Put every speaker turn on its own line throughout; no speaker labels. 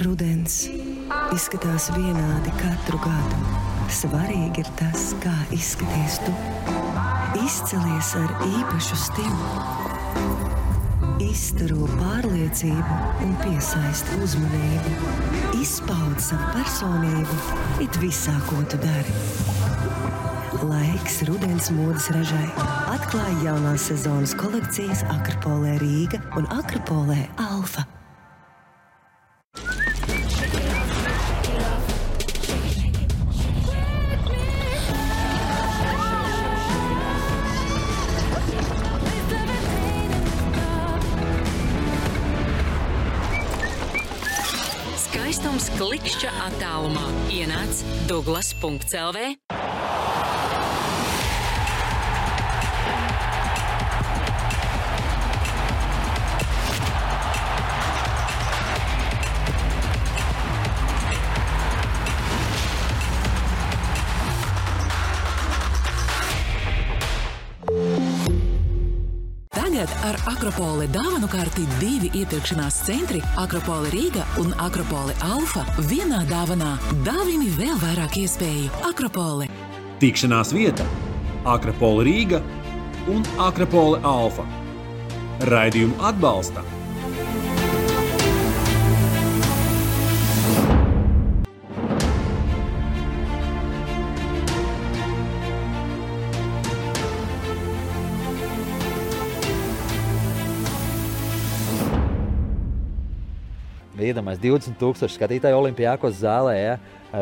Rudens izskatās vienādi katru gadu. Svarīgi ir tas, kā izskaties tu. Izcelies ar īpašu stilu. Izstaro pārliecību un piesaist uzmanību. Izpaud savu personību, it visā, ko tu dari. Laiks rudens modes ražai. Atklāj jaunās sezonas kolekcijas Akropolē Rīga un Akropolē Alfa.
Skaistums klikšķa attālumā. Ienāc Douglas.lv. Tagad ar Akropole dāvanu karti 2 iepirkšanās centri Akropole Rīga un Akropole Alfa vienā dāvanā. Dāvini vēl vairāk iespēju. Akropole.
Tikšanās vieta Akropole Rīga un Akropole Alfa. Raidījumu atbalsta
Iedomājies 20,000 skatītāju Olimpiakos zālē, ja?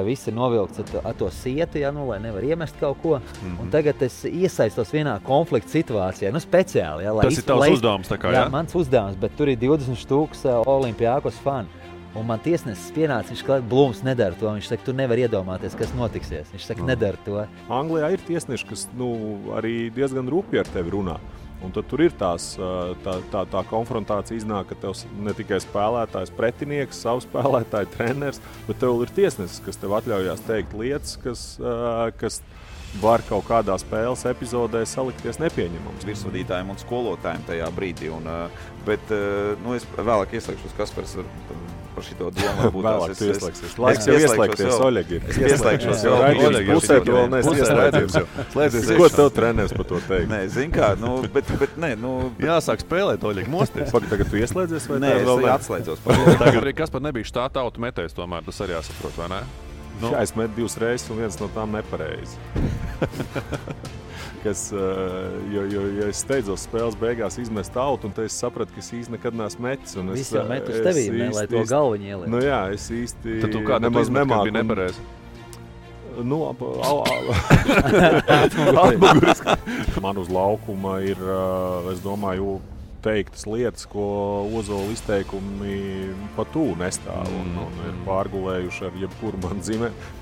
Viss ir novilkts ar to sietu, ja? Lai nevar iemest kaut ko. Un tagad es iesaistos vienā konflikta situācijā, speciāli. Ja?
Tas ir tavs uzdevums, tā kā, ja?
Jā, mans uzdevums, bet tur ir 20,000 Olimpiakos fani. Un man tiesnesis pienāca, viņš klāt, Blūms nedara to. Viņš saka, tu nevar iedomāties, kas notiksies. Viņš saka, nedara to.
Anglijā ir tiesneši, kas arī diezgan rūpīgi ar tevi runā. Un tad tur ir tā konfrontācija iznāk, ka tev ne tikai spēlētājs, pretinieks, savs spēlētāji, treneris, bet tev ir tiesnesis, kas tev atļaujās teikt lietas, kas var kaut kādā spēles epizodē salikties nepieņemams.
Virsvadītājiem un skolotājiem tajā brīdī. Bet es vēlāk ieslēgšos, Kaspars par šito domu.
Vēlāk tu ieslēgsies. Laiks jau ieslēgties, Oļeg ir.
Es ieslēgšos jau.
Raidījums pusē tu vēl neesi ieslēdzies. Ko tev treneris par to teikt?
Nē, zin kā, bet nē,
Jāsāk spēlēt, Oļeg, mosties. Tagad tu ieslēdzies vai
nē, es atslēdzos.
Tagad arī Kaspar nebija štāta autu metējs tomēr, tas arī jāsaprot, vai ne? Jā, es metu 2 reizes un viens no tām nepareizi. Jo es steidzos spēles beigās izmest autu, un te es sapratu, ka es īsti nekad neesmu metis.
Visi jau met uz tevīm, lai to galviņu ieliek.
Nu jā, es īsti
tad tu kā nemaz nemāku. Bija nepareizi?
Atmuguriski. Man uz laukuma ir, es domāju, teiktas lietas, ko Ozola izteikumi pat nestāv un ir pārgulējuši ar jebkuru man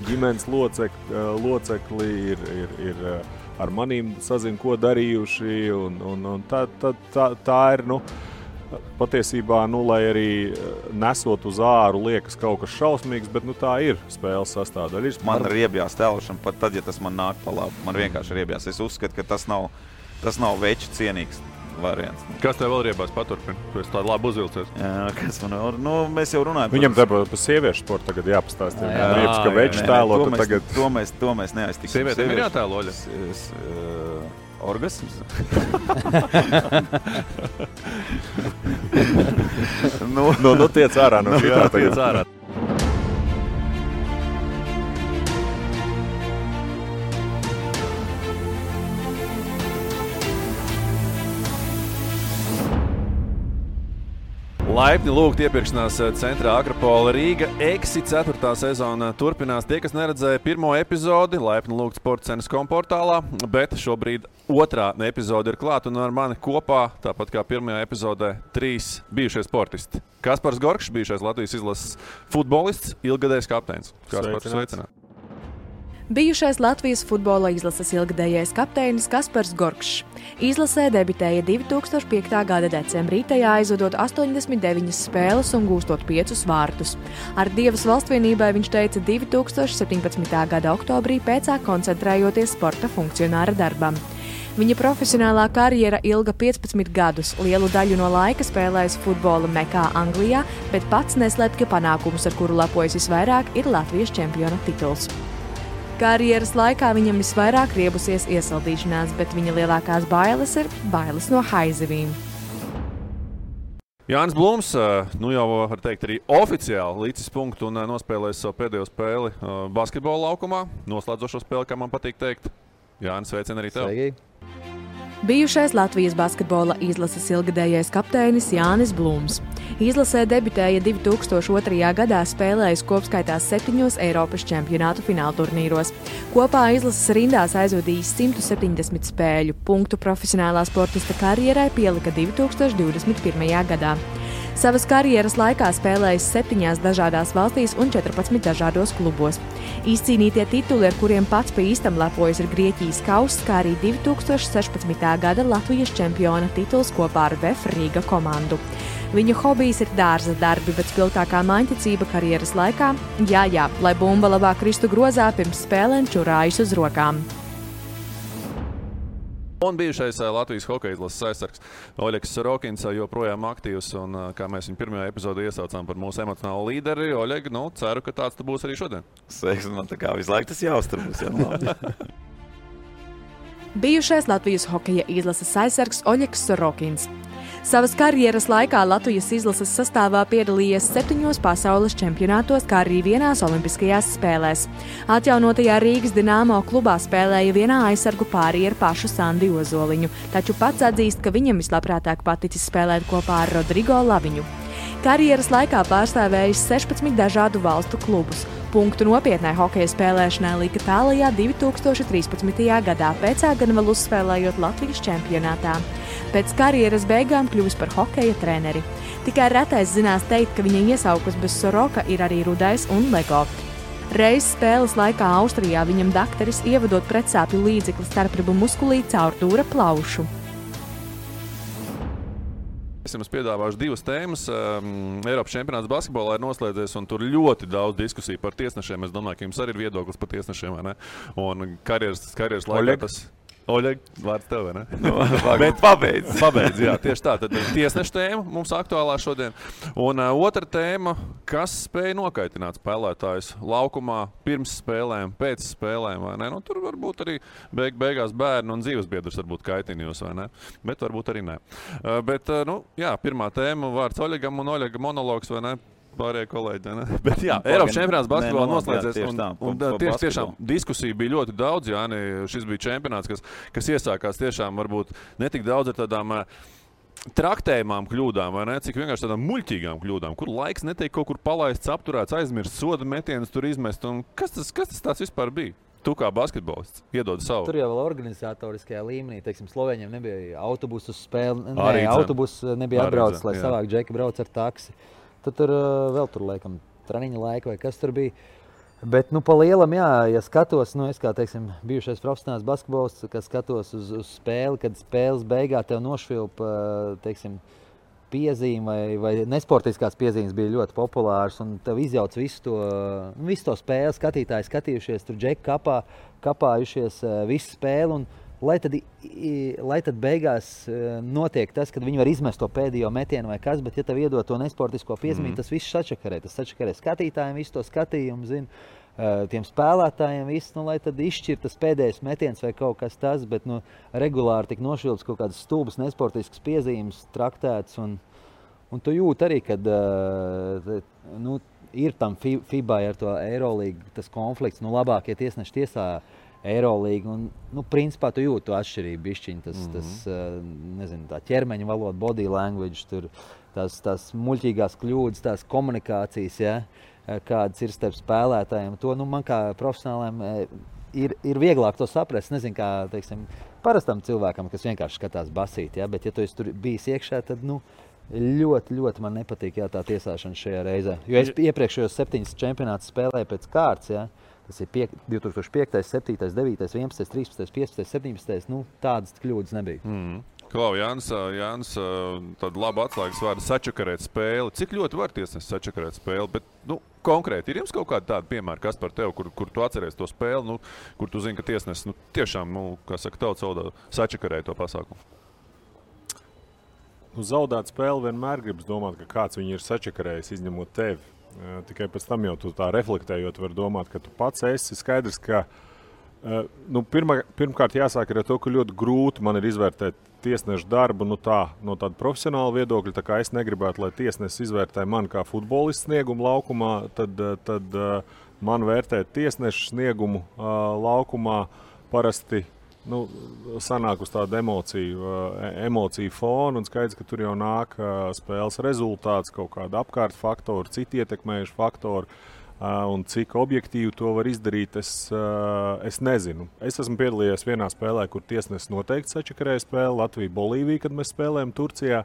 ģimenes locekli, ir ar manīm sazin, ko darījuši, un tā ir, patiesībā, lai arī nesot uz āru liekas kaut kas šausmīgs, bet tā ir spēles sastāvdaļa.
Man ir riebjās tēlošana, pat tad, ja tas man nāk pa labu. Man vienkārši riebjās. Es uzskatu, ka tas nav veču cienīgs variants.
Kas tev vēl riebās paturpina? Tu esi tādu labu uzvilcies.
Jā, kas man vēl? Mēs jau runājam.
Viņam par sieviešu sportu tagad jāpastāst. Riebs, ka veču tēlo, tad tagad...
To mēs neaiztiksim.
Sievietēm ir jātēlo, Oļa?
Orgasms?
Tiec ārā no šitā tagad. Laipni lūgt iepirkšanās centrā Akropole Rīga. 4. sezona turpinās. Tie, kas neredzēja 1. epizodi, laipni lūgt Sportcenes.com portālā, bet šobrīd 2. epizode ir klāt un ar mani kopā, tāpat kā 1. epizodē, 3 bijušie sportisti. Kaspars Gorkšs, bijušais Latvijas izlases futbolists, ilgadējs kapteinis. Kaspars, sveicināt.
Bijušais Latvijas futbola izlases ilgadējais kapteinis Kaspars Gorkšs. Izlasē debitēja 2005. gada decembrī, tajā aizvadot 89 spēles un gūstot 5 vārtus. Ar Dievas valstvienībai viņš teica 2017. gada oktobrī pēcā koncentrējoties sporta funkcionāra darbam. Viņa profesionālā karjera ilga 15 gadus, lielu daļu no laika spēlējis futbola mekā Anglijā, bet pats neslēpj, ka panākums, ar kuru lepojas visvairāk, ir Latvijas čempiona tituls. Karjeras laikā viņam visvairāk riebusies iesaldīšanās, bet viņa lielākās bailes ir bailes no haizivīm.
Jānis Blūms, nu jau var teikt arī oficiāli līdzis punktu un nospēlējis savu pēdējo spēli basketbola laukumā. Noslēdzošo spēli, kā man patīk teikt. Jānis, sveicien arī tev.
Sveiki.
Bijušais Latvijas basketbola izlases ilgadējais kapteinis Jānis Blūms. Izlasē debitēja 2002. gadā, spēlējis kopskaitā 7 Eiropas čempionātu finālturnīros. Kopā izlases rindās aizvadījis 170 spēļu. Punktu profesionālā sportista karjerai pielika 2021. gadā. Savas karjeras laikā spēlējis 7 dažādās valstīs un 14 dažādos klubos. Izcīnītie tituli, ar kuriem pats pa īstam lepojas, ir Grieķijas kauss, kā arī 2016. gada Latvijas čempiona tituls kopā ar VF Rīga komandu. Viņa hobijs ir dārza darbi, bet spilgtākā maņticība karjeras laikā – jā, lai bumba labāk kristu grozā, pirms spēlēm čurājas uz rokām.
Un bijušais Latvijas hokeja izlases aizsargs Oļegs Sorokins joprojām aktīvs, un kā mēs viņu pirmajā epizodē iesaucām par mūsu emocionālo līderi, Oļeg, ceru, ka tāds tu būs arī šodien.
Sveiks, man tā kā visu laiku tas jāuztur būs, jā.
Bijušais Latvijas hokeja izlases aizsargs Oļegs Sorokins. Savas karjeras laikā Latvijas izlases sastāvā piedalījies 7 pasaules čempionātos, kā arī vienās olimpiskajās spēlēs. Atjaunotajā Rīgas Dināmo klubā spēlēja vienā aizsargu pārī ar pašu Sandi Ozoliņu, taču pats atzīst, ka viņam vislabprātāk paticis spēlēt kopā ar Rodrigo Laviņu. Karjeras laikā pārstāvējis 16 dažādu valstu klubus. Punktu nopietnai hokeja spēlēšanai lika tālajā 2013. gadā, pēcā gan vēl uzspēlējot Latvijas čempionātā. Pēc karjeras beigām kļuvis par hokeja treneri. Tikai retais zinās teikt, ka viņa iesaukas bez Soroka ir arī Rudais un Lego. Reiz spēles laikā Austrijā viņam dakteris ievadot pretsāpju līdzekli starpribu muskulī caur dūra plaušu.
Es jums piedāvāšu 2 tēmas. Eiropas čempionāts basketbolā ir noslēdzies, un tur ļoti daudz diskusiju par tiesnešiem. Es domāju, ka jums arī ir viedoklis par tiesnešiem, vai ne? Un karjeras laikā tas... Oļeg, vārds tev, vai ne?
Bet pabeidz.
Pabeidz, jā, tieši tā. Tad tiesneša tēma mums aktuālā šodien. Un otra tēma, kas spēja nokaitināt spēlētājus laukumā pirms spēlēm, pēc spēlēm, vai ne? Nu, tur varbūt arī beigās bērni un dzīvesbiedrs varbūt kaitina jūs, vai ne? Bet varbūt arī ne. Bet, pirmā tēma vārds Oļegam un Oļega monologs, vai ne? Pārējie kolēģi, ne? Bet jā, Eiropas čempionāts basketbolā noslēdzies, un tieši tiešām diskusija bija ļoti daudz, Jāni, šis bija čempionāts, kas iesākās tiešām varbūt ne tik daudz ar tādām traktējumām kļūdām, vai ne? Cik vienkārši tādām muļķīgām kļūdām, kur laiks netiek kaut kur palaists, apturēts, aizmirst, soda metienus tur izmest, un kas tas tāds vispār bija? Tu kā basketbolists iedod savu.
Tur jau vēl organizatoriskajā līmenī, teiksim, Slovēņiem nebija autobusu spēle, autobus nebija atbraucis, lai savāk džeki brauc ar taksi. Tad tur vēl tur, laikam, treniņa laika vai kas tur bija. Bet, pa lielam, jā, ja skatos, es kā, teiksim, bijušais profesionāls basketbolists, kas skatos uz spēli, kad spēles beigā tev nošvilpa, teiksim, piezīme vai nesportiskās piezīmes bija ļoti populāras, un tev izjauc visu to spēli, skatītāji skatījušies, tur džeki kapājušies visu spēli, un lai tad beigās notiek tas, kad viņi var izmest to pēdējo metienu vai kas, bet ja tev iedod to nesportisko piezīmi, tas viss sačakarē. Tas sačakarē skatītājiem, visu to skatījumu, tiem spēlētājiem, lai tad izšķir tas pēdējais metiens vai kaut kas tas, bet regulāri tik nošvilps kaut kādas stulbas nesportiskas piezīmes traktēts, un tu jūti arī, kad ir tam FIBA ar to Eirolīgu tas konflikts, labākie tiesneši tiesā Eirolīga, un, principā tu jūti to atšķirību bišķiņ, tā ķermeņa valoda, body language, tur, tās muļķīgās kļūdas, tās komunikācijas, ja, kādas ir starp spēlētājiem. To, man kā profesionāliem ir vieglāk to saprast, nezinu, kā, teiksim, parastam cilvēkam, kas vienkārši skatās basīt, ja, bet ja tu esi tur bijis iekšā, tad, ļoti, ļoti man nepatīk, jā, tā tiesāšana šajā reizē. Jo es iepriekšējos 7 čempionātus spēlēju pēc kārtas, ja. Tas ir 2005, 7, 9, 11, 13, 15, 17. Tādas kļūdas nebija.
Klau, Jānis, tāda laba atslēgas vārda sačakarēt spēli. Cik ļoti var tiesnesis sačakarēt spēli? Bet, konkrēti, ir jums kaut kāda tāda piemēra, kas par tevi, kur tu atceries to spēli, kur tu zini, ka tiesnesis tiešām, kā saka, tautas valodā, sačakarēja to pasākumu?
Zaudēt spēli vienmēr gribas domāt, ka kāds viņu ir sačakarējis, izņemot tevi. Tikai pēc tam jau tu tā reflektējot var domāt, ka tu pats esi skaidrs, ka pirmkārt jāsāk ar to, ka ļoti grūti man ir izvērtēt tiesnešu darbu no tāda profesionāla viedokļa. Tā kā es negribētu, lai tiesnesis izvērtē mani kā futbolistu sniegumu laukumā, tad man vērtēt tiesnešu sniegumu laukumā parasti sanāk uz tādu emociju fonu, un skaidrs, ka tur jau nāk spēles rezultāts, kaut kāda apkārt faktori, citi ietekmējuši faktori. Un cik objektīvi to var izdarīt, es nezinu. Es esmu piedalījies vienā spēlē, kur tiesnesis noteikti sačakarēja spēli, Latvija-Bolīvija, kad mēs spēlējam Turcijā,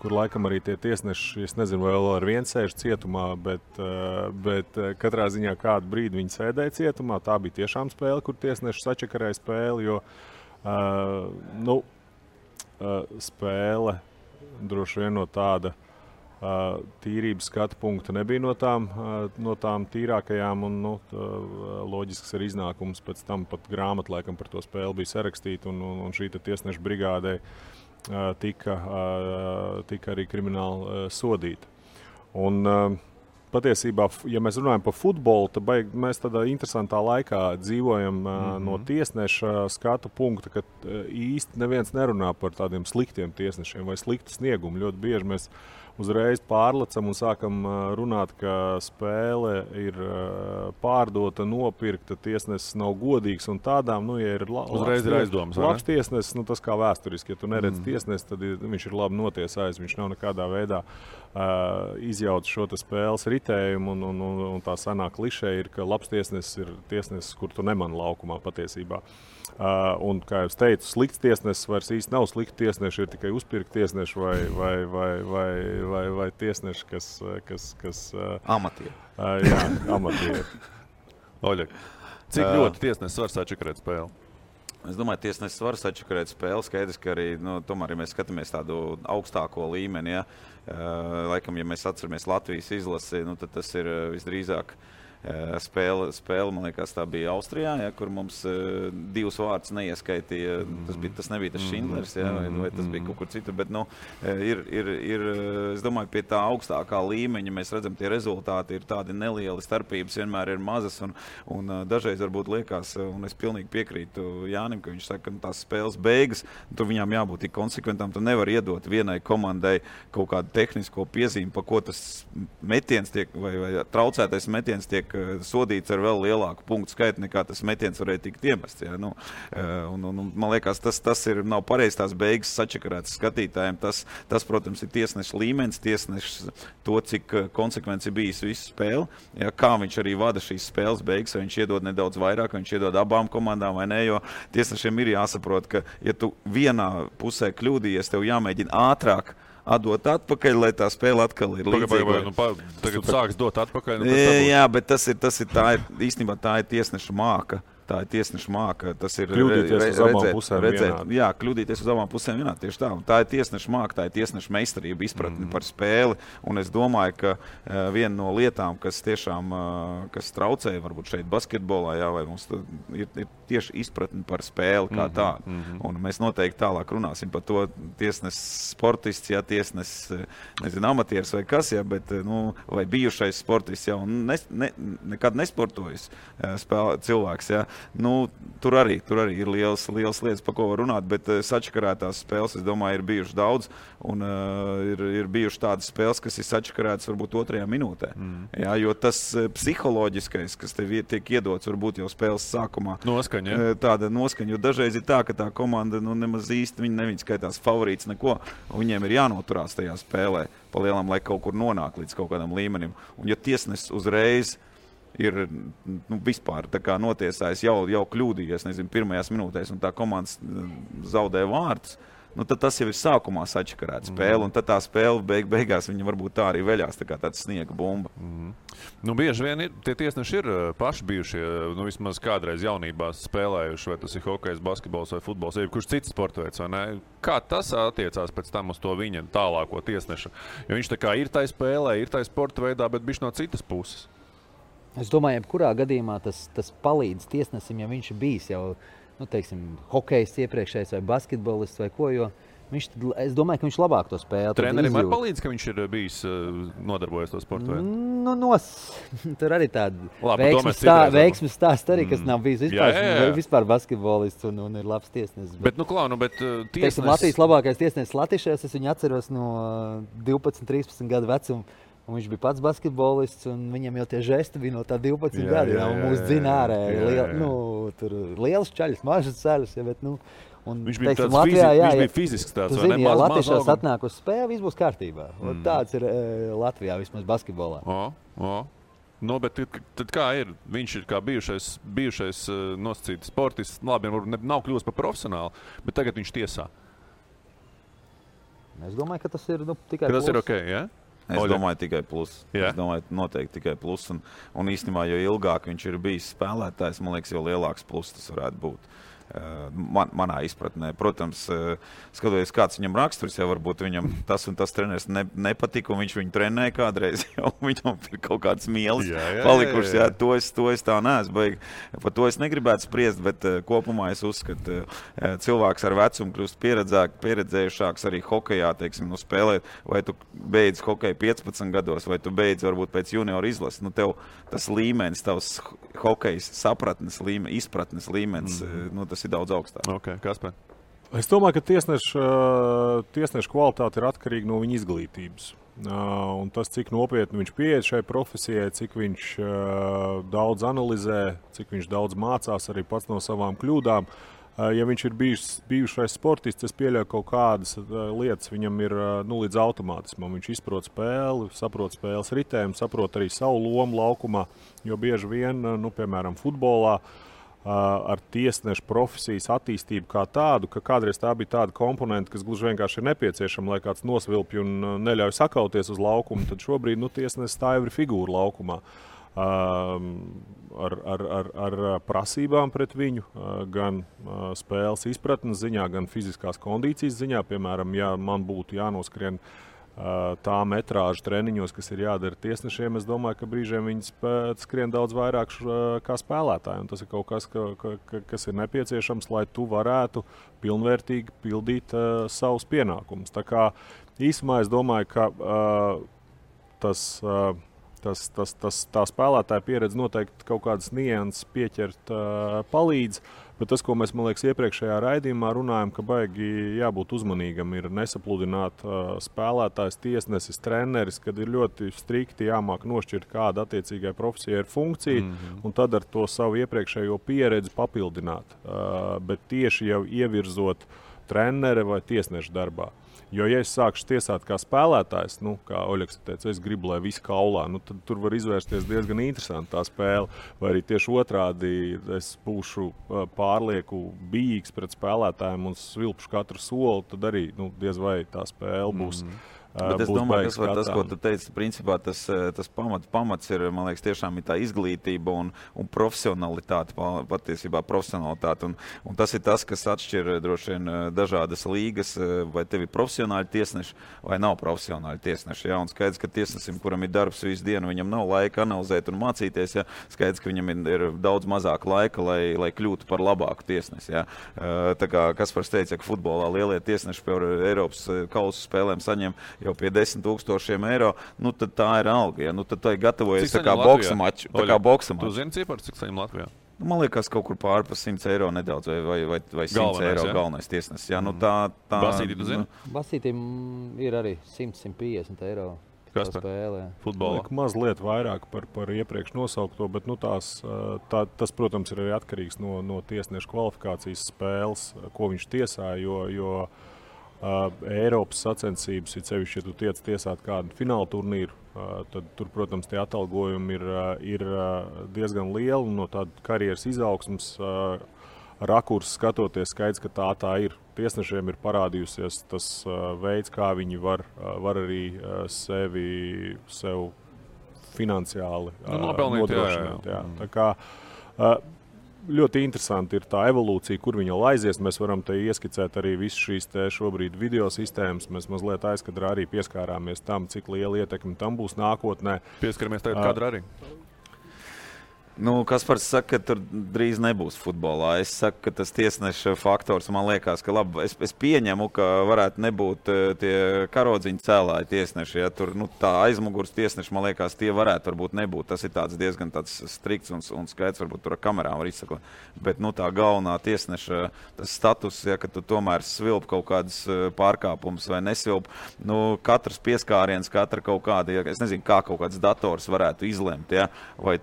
kur laikam arī tie tiesneši, es nezinu, vai vēl ar vienu sēž cietumā, bet katrā ziņā kādu brīdi viņi sēdēja cietumā. Tā bija tiešām spēle, kur tiesneši sačakarēja spēli, jo spēle droši vien no tāda tīrības skatu punkta nebija no tām tīrākajām, un loģisks arī iznākums pēc tam pat grāmata laikam par to spēli bija sarakstīta, un šī tiesneša brigādē tika arī krimināli sodīta. Un patiesībā, ja mēs runājam par futbolu, tad mēs tādā interesantā laikā dzīvojam no tiesneša skatu punkta, ka īsti neviens nerunā par tādiem sliktiem tiesnešiem vai sliktu sniegumu. Ļoti bieži mēs uzreiz pārlecam un sākam runāt, ka spēle ir pārdota, nopirkta, tiesnesis nav godīgs un tādām, ja ir labs tiesnesis, tas kā vēsturiski, ja tu neredz tiesnesi, tad viņš ir labi notiesājis, viņš nav nekādā veidā izjauts šo spēles ritējumu, un tā sanāk klišē ir, ka labs tiesnesis ir tiesnesis, kur tu nemani laukumā patiesībā. Un, kā jau teicu, slikts tiesnesis vairs īsti nav slikti tiesneši, ir tikai uzpirkti tiesneši vai tiesneši, kas
amatieri.
Jā, amatieri.
Oļeg, cik ļoti tiesnesis var sačakarēt spēli?
Es domāju, tiesnesis var sačakarēt spēli. Skaidrs, ka arī, tomēr, ja mēs skatāmies tādu augstāko līmeni, laikam, ja mēs atceramies Latvijas izlasi, tad tas ir visdrīzāk spēle, man liekas, tā bija Austrijā, kur mums divus vārdus neieskaitīja. Tas nebija tas Šindlers, vai tas bija kaut kur citur, bet es domāju, pie tā augstākā līmeņa mēs redzam, tie rezultāti ir tādi nelieli, starpības vienmēr ir mazas, un dažreiz varbūt liekas, un es pilnīgi piekrītu Jānim, ka viņš saka, ka tās spēles beigas, tur viņām jābūt tik konsekventām, tu nevar iedot vienai komandai kaut kādu tehnisko piezīmi, pa ko tas metiens tiek, vai traucētais metiens tiek sodīts ar vēl lielāku punktu skaitu, nekā tas metiens varēja tikt iemests. Man liekas, tas nav pareizi tās beigas sačakarētas skatītājiem. Tas, protams, ir tiesneša līmenis, tiesnešs to, cik konsekvenci bijis visu spēli. Kā viņš arī vada šīs spēles beigas, vai viņš iedod nedaudz vairāk, vai viņš iedod abām komandām vai ne, jo tiesnešiem ir jāsaprot, ka, ja tu vienā pusē kļūdījies, tev jāmēģina ātrāk atdot atpakaļ, lai tā spēle atkal ir līdzīga.
Tagad sāks dot atpakaļ.
Jā, bet īstenībā tā ir tiesneša māka. Tā ir tiesneša māka. Tas ir
kļūdīties uz abām pusēm
vienādi. Jā, kļūdīties uz abām pusēm vienādi. Tieši tā. Tā ir tiesneša māka, tā ir tiesneša meistarība, izpratni par spēli. Un es domāju, ka viena no lietām, kas tiešām kas traucēja varbūt šeit basketbolā, vai mums ir tieši izpratni par spēli kā tādu. Un mēs noteikti tālāk runāsim par to tiesnesis sportists, tiesnesis, amatieris vai kas, bet, vai bijušais sportists jau nekad nesportojis cilvēks, tur arī ir liels lietas, par ko var runāt, bet sačakarētās spēles, es domāju, ir bijušas daudz, un ir bijušas tādas spēles, kas ir sačakarētas varbūt 2. minūtē. Jo tas psiholoģiskais, kas tev tiek iedots, varbūt jau spēles sākumā. Tāda noskaņa, jo dažreiz ir tā, ka tā komanda nemaz īsti viņi skaitās favorīts neko, un viņiem ir jānoturās tajā spēlē pa lielam, lai kaut kur nonāk līdz kaut kādam līmenim. Un ja tiesnesis uzreiz ir vispār tā kā notiesājis, jau kļūdījies, pirmajās minūtēs, un tā komandas zaudē vārdus, nu, tad tas jau ir sākumā sačakarēta spēle, un tad tā spēle beigās viņa varbūt tā arī veļās, tā kā tāds sniega bumba.
Nu, bieži vien tie tiesneši ir paši bijušie, nu, vismaz kādreiz jaunībā spēlējuši, vai tas ir hokejs, basketbols vai futbols, vai kurš cits sportveids, vai ne? Kā tas attiecās pēc tam uz to viņa tālāko tiesneša? Jo viņš tā kā ir tai spēlē, ir tai sporta veidā, bet bišķi no citas puses.
Es domāju, jebkurā gadījumā tas palīdz tiesnesim, ja viņš ir bijis jau, nu, teiksim, hokejs iepriekšējais vai basketbolists vai ko, jo es domāju, ka viņš labāk to spēli.
Trenerim var palīdz, ka viņš ir bijis nodarbojies to sportu veidu?
Nu, tur arī tāda veiksmes stāsts arī, kas nav bijis vispār basketbolists un ir labs tiesnesis.
Bet, nu, klā, tiesnesis...
Teiksim, Latvijas labākais tiesnesis Latišajos, es viņu atceros no 12-13 gadu vecuma. Un viņš bija pats basketbolists, un viņam jau tie žesti bija no tā 12 gadi. Un mūs dzina ārē. Tur liels čaļus, mažas ceļus. Ja, bet,
viņš bija tāds Latvijā, viņš bija fizisks tāds.
Tu zini, ja Latviešās atnāk uz spēli, viss būs kārtībā. Tāds ir Latvijā vismaz basketbolā.
Nu, bet tad kā ir? Viņš ir kā bijušais nosacīts sportists. Labi, varbūt nav kļūst par profesionālu, bet tagad viņš tiesā.
Es domāju, ka tas ir tikai
plus. Tas ir ok, ja?
Es domāju, tikai plus. Es domāju, noteikti tikai plus. Un īstenībā, jo ilgāk viņš ir bijis spēlētājs, man liekas, jo lielāks plus tas varētu būt. Manā izpratnē. Protams, skatoties, kāds viņam raksturs, jau varbūt viņam tas un tas treneris nepatika, un viņš viņu trenēja kādreiz, jau viņam ir kaut kāds mielis palikušas. Jā, to es tā neesmu baigi. Par to es negribētu spriest, bet kopumā es uzskatu, cilvēks ar vecumu kļūst pieredzējušāks arī hokejā, teiksim, spēlēt, vai tu beidz hokeju 15 gados, vai tu beidz varbūt pēc junioru izlases. Tev tas līmenis, tavs hokejs sapratnes līmenis, izpratnes līmenis, tas ir daudz augstāk.
Okay, Kaspar?
Es domāju, ka tiesneša kvalitāte ir atkarīga no viņa izglītības. Un tas, cik nopietni viņš pieiet šai profesijai, cik viņš daudz analizē, cik viņš daudz mācās arī pats no savām kļūdām. Ja viņš ir bijušais sportists, es pieļauju kaut kādas lietas, viņam ir līdz automātismam. Viņš izprot spēli, saprot spēles ritējumu, saprot arī savu lomu laukumā, jo bieži vien, piemēram, futbolā, ar tiesnešu profesijas attīstību kā tādu, ka kādreiz tā bija tāda komponenta, kas gluži vienkārši ir nepieciešama, lai kāds nosvilpj un neļauj sakauties uz laukumu, tad šobrīd tiesnesis tā jau ir figūra laukumā. Ar prasībām pret viņu, gan spēles izpratnes ziņā, gan fiziskās kondīcijas ziņā. Piemēram, ja man būtu jānoskrien tā metrāža treniņos, kas ir jādara tiesnešiem, es domāju, ka brīžiem viņi skrien daudz vairāk kā spēlētāji. Un tas ir kaut kas, kas ir nepieciešams, lai tu varētu pilnvērtīgi pildīt savus pienākumus. Tā kā īsumā es domāju, ka tā spēlētāja pieredze noteikti kaut kādas nianses pieķert palīdz. Bet tas, ko mēs, man liekas, iepriekšējā raidījumā runājam, ka baigi jābūt uzmanīgam, ir nesapludināt spēlētājs, tiesnesis, treneris, kad ir ļoti strikti jāmāk nošķirt, kāda attiecīgai profesijai ir funkcija, un tad ar to savu iepriekšējo pieredzi papildināt. Bet tieši jau ievirzot treneri vai tiesneša darbā. Jo, ja es sākšu tiesāt kā spēlētājs, kā Oļegs teica, es gribu, lai visi kaulā, tad tur var izvērsties diezgan interesanti tā spēle. Vai arī tieši otrādi es būšu pārlieku bijīgs pret spēlētājiem un svilpšu katru soli, tad arī diez vai tā spēle būs.
Bet es domāju, ka tas, ko tu teici, principā tas pamats ir, man liekas, tiešām ir tā izglītība un profesionalitāte, patiesībā profesionalitāte. Un tas ir tas, kas atšķir droši vien dažādas līgas, vai tev ir profesionāļi tiesneši vai nav profesionāļi tiesneši. Ja? Un skaidrs, ka tiesnesim, kuram ir darbs visu dienu, viņam nav laika analizēt un mācīties. Ja? Skaidrs, ka viņam ir daudz mazāk laika, lai kļūtu par labāku tiesnesi. Ja? Tā kā Kaspars teica, ka futbolā lielie tiesneši par Eiropas kausu spēlēm saņem jau pie 10,000 eiro, tad tā ir alga. Ja? Tad tā ir gatavojies tā kā boksa maču.
Tu zini cipars, cik saņem Latvijā?
Man liekas, kaut kur pār pa 100 eiro nedaudz, vai 100 eiro galvenais tiesnesis. Ja?
Basītī, tu zini?
Basītīm ir arī 100-150 eiro.
Kas tā spēlē? Futbolā?
Mazliet vairāk par iepriekš nosaukto, bet tas, protams, ir arī atkarīgs no tiesneša kvalifikācijas spēles, ko viņš tiesā, jo Eiropas sacensības, ir sevišķi, ja tu tiec tiesāt kādu fināla turnīru, tad tur, protams, tie atalgojumi ir diezgan lieli un no tāda karjeras izaugsmas rakursa skatoties skaidrs, ka tā ir. tiesnešiem ir parādījusies tas veids, kā viņi var arī sev finansiāli nodrošināt. Jā. Tā kā ļoti interesanti ir tā evolūcija, kur viņa aizies. Mēs varam te ieskicēt arī visas šīs šobrīd video sistēmas. Mēs mazliet aizkadrā arī pieskārāmies tam, cik liela ietekme tam būs nākotnē.
Pieskaramies tagad kadrā arī.
Kaspars saka, ka tur drīz nebūs futbolā. Es saku, ka tas tiesneša faktors, man liekas, ka labi. Es pieņemu, ka varētu nebūt tie karodziņu cēlāji tiesneši. Ja tur tā aizmugurs tiesneši, man liekas, tie varētu varbūt nebūt. Tas ir diezgan tāds strikts un skaidrs, varbūt tur ar kamerām var izsakot. Bet tā galvenā tiesneša tas status, ja, ka tu tomēr svilp kaut kādas pārkāpumus vai nesvilp, katrs pieskāriens, katra kaut kāda, ja, es nezinu, kā kaut kāds dators varētu izlemt, ja, vai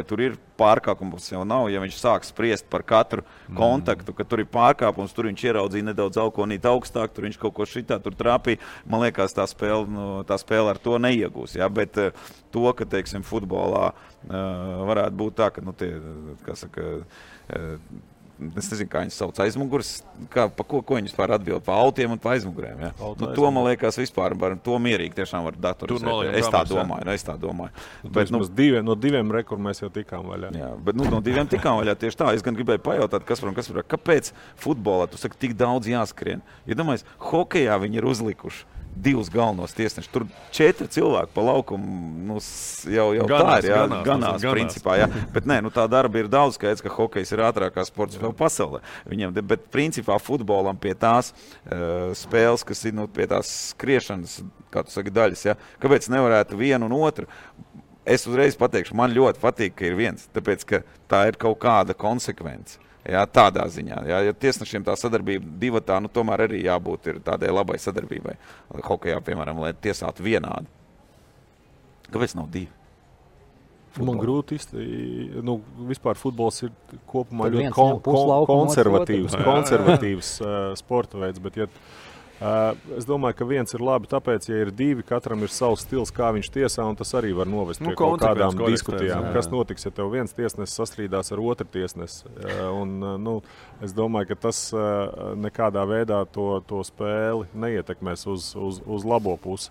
tur ir pārkāpums jau nav, ja viņš sāk spriest par katru kontaktu, ka tur ir pārkāpums, tur viņš ieraudzīja nedaudz alkonīt augstāk, tur viņš kaut ko šitā tur trāpīja. Man liekas, tā spēle ar to neiegūs. Ja? Bet to, ka, teiksim, futbolā varētu būt tā, ka, es nezinu, kā viņas sauc aizmugurs, pa ko viņas pār atbild, pa autiem un pa aizmugurēm. Ja? To, man liekas, vispār to mierīgi tiešām var datorizēt. Es tā domāju. Bet,
no 2 rekur mēs jau tikām vaļā.
Jā, bet no 2 tikām vaļā tieši tā. Es gan gribēju pajautāt, kāpēc futbolā tu saki tik daudz jāskrien? Ja domājies, hokejā viņi ir uzlikuši 2 galvenos tiesnešus. Tur 4 cilvēki pa laukumu jau ganās, tā ir. Ganās principā. Jā. Bet tā darba ir daudz skaidrs, ka hokejs ir ātrākā sports vēl pasaulē. Bet principā futbolam pie tās spēles, kas ir pie tās skriešanas, kā tu saki, daļas, ja? Kāpēc nevarētu vienu un otru? Es uzreiz pateikšu, man ļoti patīk, ka ir viens, tāpēc, ka tā ir kaut kāda konsekvence. Jā, tādā ziņā. Jā, ja tiesnešiem tā sadarbība divatā, tomēr arī jābūt ir tādai labai sadarbībai. Hokejā, piemēram, lai tiesātu vienādi. Kāpēc nav 2?
Man grūti vispār futbols ir kopumā ļoti konservatīvs sporta veids, bet es domāju, ka viens ir labi, tāpēc, ja ir 2, katram ir savs stils, kā viņš tiesā, un tas arī var novest pie kaut kādām diskutijām. Kas notiks, ja tev viens tiesnesis sastrīdās ar otru tiesnesi? Es domāju, ka tas nekādā veidā to spēli neietekmēs uz labo pusi.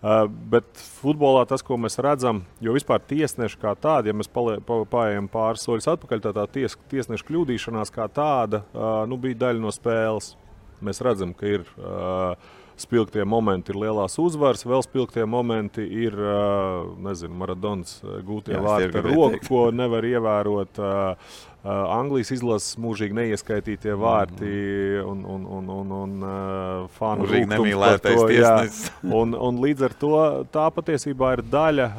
Bet futbolā tas, ko mēs redzam, jo vispār tiesneši kā tādi, ja mēs paējam pāris soļus atpakaļ, tā tiesneša kļūdīšanās kā tāda bija daļa no spēles. Mēs redzam, ka ir spilgtie momenti, ir lielās uzvaras, vēl spilgtie momenti ir, Maradonas gūtie vārti ar roku, ko nevar ievērot. Anglijas izlases mūžīgi neieskaitītie vārti un fanu rūgtums par to. Jā. Un līdz ar to tā patiesībā ir daļa,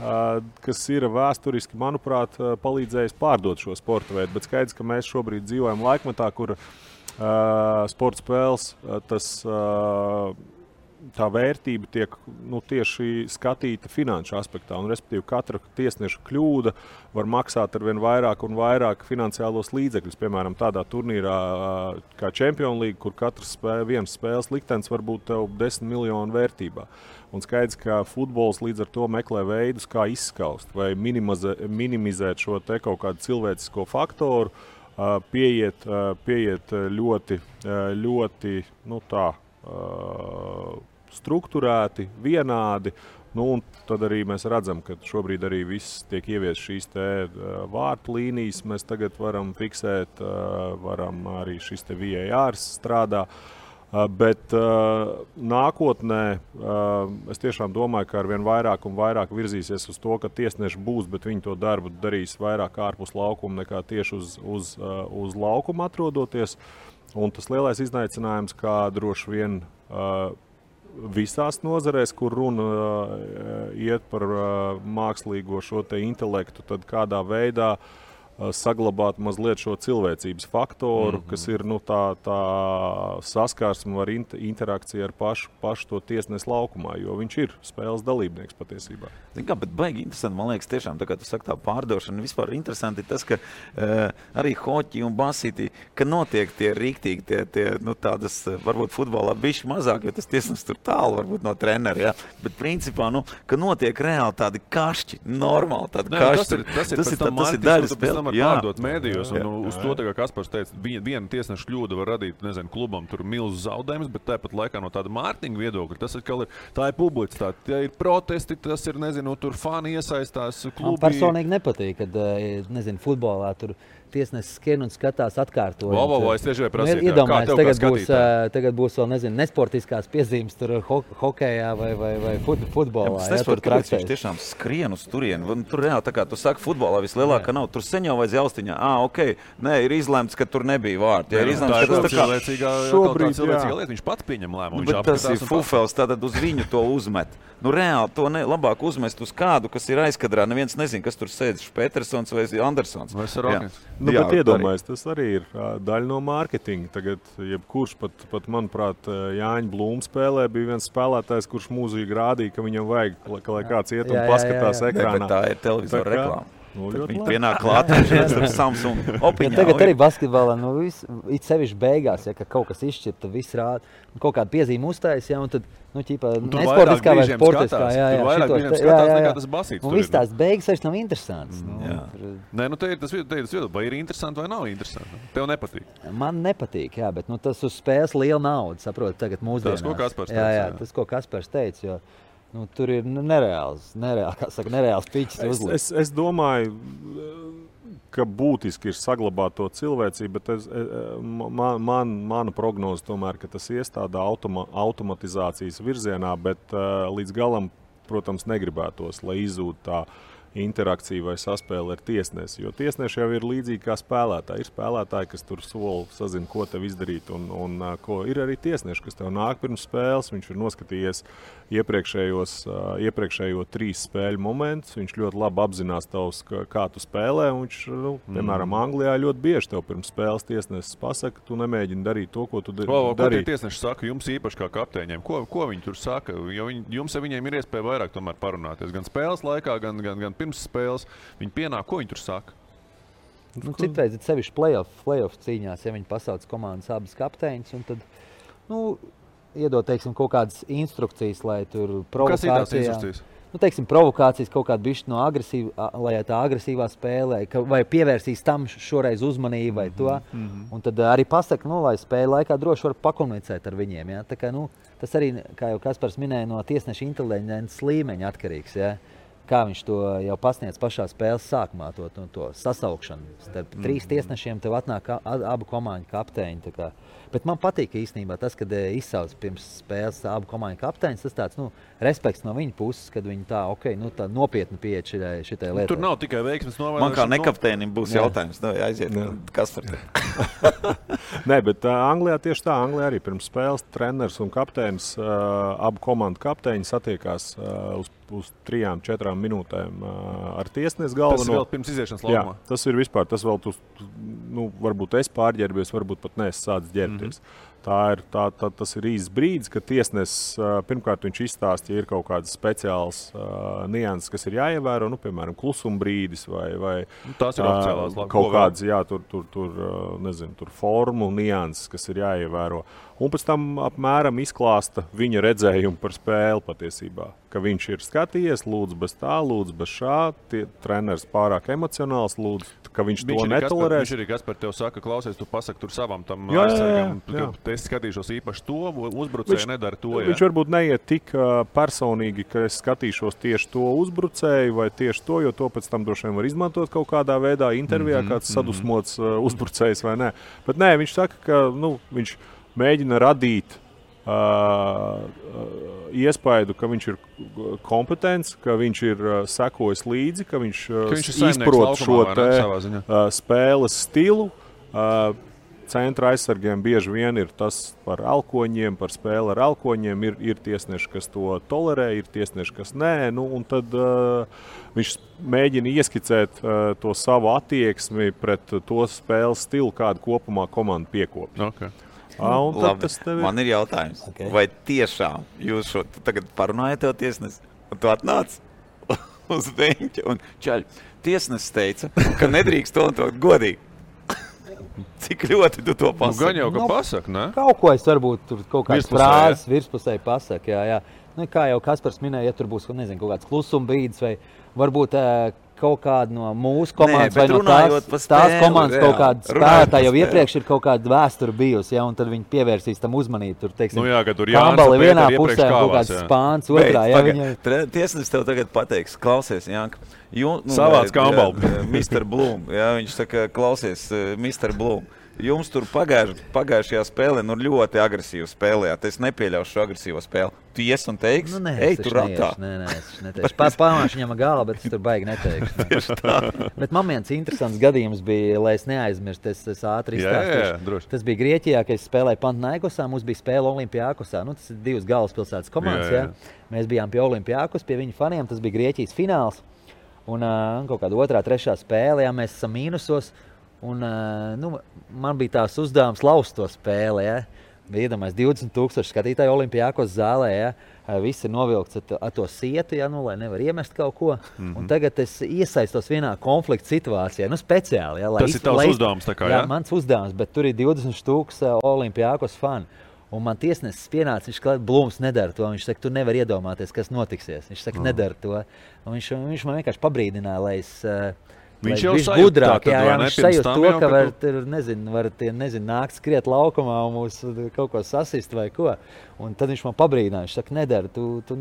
kas ir vēsturiski, manuprāt, palīdzējis pārdot šo sporta veidu. Bet skaidrs, ka mēs šobrīd dzīvojam laikmetā, kur sporta spēles, tā vērtība tiek tieši skatīta finanšu aspektā. Un, respektīvi, katra tiesneša kļūda var maksāt ar vien vairāk un vairāk finansiālos līdzekļus. Piemēram, tādā turnīrā kā Champions League, kur katrs viens spēles liktenis var būt tev 10 miljonu vērtībā. Un skaidrs, ka futbols līdz ar to meklē veidus, kā izskaust vai minimizēt šo te kaut kādu cilvēcisko faktoru, pieiet ļoti strukturēti, vienādi. Un tad arī mēs redzam, ka šobrīd arī viss tiek ievies šīs vārtu līnijas. Mēs tagad varam fiksēt, varam arī šis VAR strādā. Bet nākotnē es tiešām domāju, ka arvien vairāk un vairāk virzīsies uz to, ka tiesneši būs, bet viņi to darbu darīs vairāk ārpus laukuma nekā tieši uz laukuma atrodoties. Un tas lielais izaicinājums, kā droši vien visās nozarēs, kur runa iet par mākslīgo šo te intelektu, tad kādā veidā saglabāt mazliet šo cilvēcības faktoru, kas ir tā saskarsme ar interakciju ar pašu to tiesnesi laukumā, jo viņš ir spēles dalībnieks patiesībā.
Kā, bet baigi interesanti, man liekas, tiešām, tā kā tu saki tā pārdošana, vispār interesanti ir tas, ka arī hoķi un basīti, ka notiek tie rīktīgi, tādas, varbūt futbolā bišķi mazāk, jo tas tiesnesis tur tālu, varbūt no trenera, jā. Bet principā, ka notiek reāli tādi kašķi, normāli tādi kašķi.
Tas ir daļa spēle. tomēr pārdot mēdījos, un uz to, kā Kaspars teica, viena tiesneša kļūda var radīt, nezinu, klubam tur milzu zaudējumus, bet tāpat laikā no tāda mārketinga viedokļa, tas ir, tā ir publicitāte, tie ir protesti, tas ir, nezinu, tur fani iesaistās, klubi.
Man personīgi nepatīk, kad, nezinu, futbolā tur tiesnesis skrien un skatās atkārtojot.
Es tieši prasīju,
iedomājies, tagad būs vēl, nezinu, nesportiskās piezīmes tur hokejā vai futbolā.
Es nesaprotu, kāpēc viņš tiešām skrien uz turieni. Tur reāli, tā kā tu saki, futbolā vislielākā nav. Tur sen jau vajadz jaustiņā. Nē, ir izlemts, ka tur nebija vārdi. Ja ir izlemts, ka tas tā kā
cilvēcīgā lieta, viņš pats pieņem lēmumu.
Bet tas ir fufels, tātad uz viņu to uzmet. Reāli to labāk uzmest uz kādu, kas ir aizkadrā. Neviens nezin, kas tur sēdz, Petersons vai Andersons.
Bet iedomājies, tas arī ir daļa no mārketinga. Tagad, jebkurš pat manuprāt, Jāņa Blūma spēlē bija viens spēlētājs, kurš mūzīgi rādīja, ka viņam vajag, lai kāds iet un paskatās ekrānā.
Bet tā ir televizora reklāma. Viņi pienāk klāt ar Samsung opiņā.
Tagad arī basketbolā, it sevišķi beigās, ka kaut kas izšķirta, viss rāda, kaut kāda piezīme uztājas, un tad, nesportiskā vai sportiskā,
tur vairāk brīžiem skatās nekā tas basīts.
Un viss tās beigas vairs nav interesants.
Nē, te ir tas viedoklis, vai ir interesanti vai nav interesanti. Tev nepatīk?
Man nepatīk, bet tas uz spēles liela nauda, saprot, tagad mūsdienās.
Tas, ko Kaspars teica.
Tas, ko Kaspars teica, jo tur ir nereāls piķis uzlikt.
Es domāju, ka būtiski ir saglabāt to cilvēcību, bet mana prognoze tomēr, ka tas ies tādā automatizācijas virzienā, bet līdz galam, protams, negribētos, lai izzūd tā interakcija vai saspēle ar tiesnesi. Jo tiesneši jau ir līdzīgi kā spēlētāji. Ir spēlētāji, kas tur soli sazina, ko tev izdarīt. Un ko ir arī tiesneši, kas tev nāk pirms spēles. Viņš ir noskatījies iepriekšējo 3 spēļu momentus. Viņš ļoti labi apzinās tavs, kā tu spēlē. Viņš, piemēram, Anglijā ļoti bieži tev pirms spēles tiesnesis pasaka, tu nemēģini darīt to, ko tu dari.
Ko tie tiesneši saka jums īpaši kā kapteiņiem? Ko viņi tur saka? Jo jums ar viņiem ir iespēja vairāk tomēr parunāties. Gan spēles laikā, gan pirms spēles. Viņi pienāk, ko viņi tur saka?
Citreiz ir sevišķi play-off cīņās, ja viņi pasauc komandas abas kapteiņus, un tad, iedod, teiksim, kaut kādas instrukcijas, lai tur provokācijā.
Kas ir tās instrukcijas?
Teiksim, provokācijas kaut kādu bišķi no lai tā agresīvā spēlē, vai pievērsīs tam šoreiz uzmanību vai to. Un tad arī pasaka, lai spēle laikā droši var pakomunicēt ar viņiem. Ja? Tā kā, tas arī, kā jau Kaspars minēja, no tiesneša inteliģences līmeņa atkarīgs. Ja? Kā viņš to jau pasniedz pašā spēles sākumā, to sasaukšanu. Starp 3 tiesnešiem tev atnāk abu komandu kapteiņi. Bet man patīk īstenībā tas, kad izsauc pirms spēles abu komandu kapteiņus. Tas tāds respekts no viņa puses, kad viņi tā nopietni pieeja šitai lietai.
Tur nav tikai veiksmes novērošana.
Man kā nekapteinim būs jautājums. Aiziet, kas par te?
Nē, bet Anglijā tieši tā. Anglijā arī pirms spēles treneris un kapteinis, abu komandu kapteiņi satiekās uz 3-4 minūtēm ar tiesnesi galveno.
Tas vēl pirms iziešanas laukumā?
Jā, tas ir vispār. Tas vēl varbūt es pārģērbies, varbūt pat neesmu sācis ģērbties. Tas ir īsts brīdis, kad tiesnesis pirmkārt viņš izstāsta, ja ir kaut kādas speciālas nianses, kas ir jāievēro, piemēram, klusuma brīdis vai
tās ir oficiālās
kaut kādas, tur formu nianses, kas ir jāievēro. Un pēc tam apmēram izklāsta viņa redzējumu par spēli patiesībā. Ka viņš ir skatījies, lūdzu bez tā, lūdzu bez šā, treneris pārāk emocionāls, lūdzu, ka viņš to netolerēs.
Viņš arī Kaspar tev saka, klausies, tu pasaki tur savam tam aizsargam, es skatīšos īpaši to, uzbrucēju nedara to. Jā.
Viņš varbūt neiet tik personīgi, ka es skatīšos tieši to uzbrucēju vai tieši to, jo to pēc tam droši vien var izmantot kaut kādā veidā intervijā, kāds sadusmots uzbrucējs vai nē. Bet nē, viņš saka, ka viņš mēģina radīt iespaidu, ka viņš ir kompetents, ka viņš ir sekojis līdzi, ka viņš izprot šo spēles stilu. Centra aizsargiem bieži vien ir tas par elkoņiem, par spēli ar elkoņiem. Ir tiesneši, kas to tolerē, ir tiesneši, kas nē. Un tad viņš mēģina ieskicēt to savu attieksmi pret to spēles stilu, kādu kopumā komanda piekopja.
Okay.
Man ir jautājums, vai tiešām jūs tagad parunājat tev tiesnesi, un tu atnāc uz beņķa un čaļ. Tiesnesis teica, ka nedrīkst to un to godīgi. Cik ļoti tu to pasaki?
Gan jau, ka pasaka, ne?
Kaut ko es varbūt tur kaut kādas frāzes virspusēji pasaka, jā. Nu, kā jau Kaspars minēja, ja tur būs kaut kāds klusuma brīdis vai varbūt kaut kāda no mūsu komandas vai no tās komandas kaut kāda spēlētāja jau iepriekš ir kaut kāda vēsture bijusi, ja, un tad viņi pievērsīs tam uzmanību. Tur, teiksim, Kāmbali vienā pusē un kaut kāds Spāns otrā.
Tiesnesis tev tagad pateiks, klausies, Janka.
Savāds Kāmbali.
Mr. Bloom, ja, viņš saka, klausies, Mr. Bloom. Jums tur pagājušajā spēlē ļoti agresīvi spēlējāt. Es nepieļaušu šo agresīvo spēli. Tu ies un teiksi, ej, tur ratā.
Nē, es neteikšu. Pamāšu viņam galā, bet es tur baigi neteikšu. Bet man viens interesants gadījums bija, lai es neaizmirstu, es ātri izstāstīšu. Tas bija Grieķijā, kad es spēlēju Panathinaikosā, mums bija spēle Olimpiakosā. Tas ir 2 galvaspilsētas komandas. Jā. Mēs bijām pie Olimpiakos, pie viņu faniem. Tas bija Grieķijas fināls. Un kaut kāda 2., 3. spēle, jā, mēs esam mīnusos. Un, man bija tās uzdevums laust to spēli. Ja? Bija iedomājies 20,000 skatītāju Olimpiakos zālē. Ja? Visi ir novilkts ar to sietu, ja? Lai nevar iemest kaut ko. Un tagad es iesaistos vienā konflikta situācijā. Speciāli. Ja?
Tas ir tavs uzdevums? Tā kā,
jā, mans uzdevums, bet tur ir 20,000 Olimpiakos fani. Un man tiesnesis pienāca, viņš klāt, Blūms nedara to. Viņš saka, tu nevar iedomāties, kas notiksies. Viņš saka, nedara to. Un viņš man vienkārši pabrīdināja, lai es...
Viņš jau
sajūt gudrāk, viņš sajūt to, ka var nākt skriet laukumā un mūs kaut ko sasist vai ko. Un tad viņš man pabrīdināja, viņš saka, nedara, tu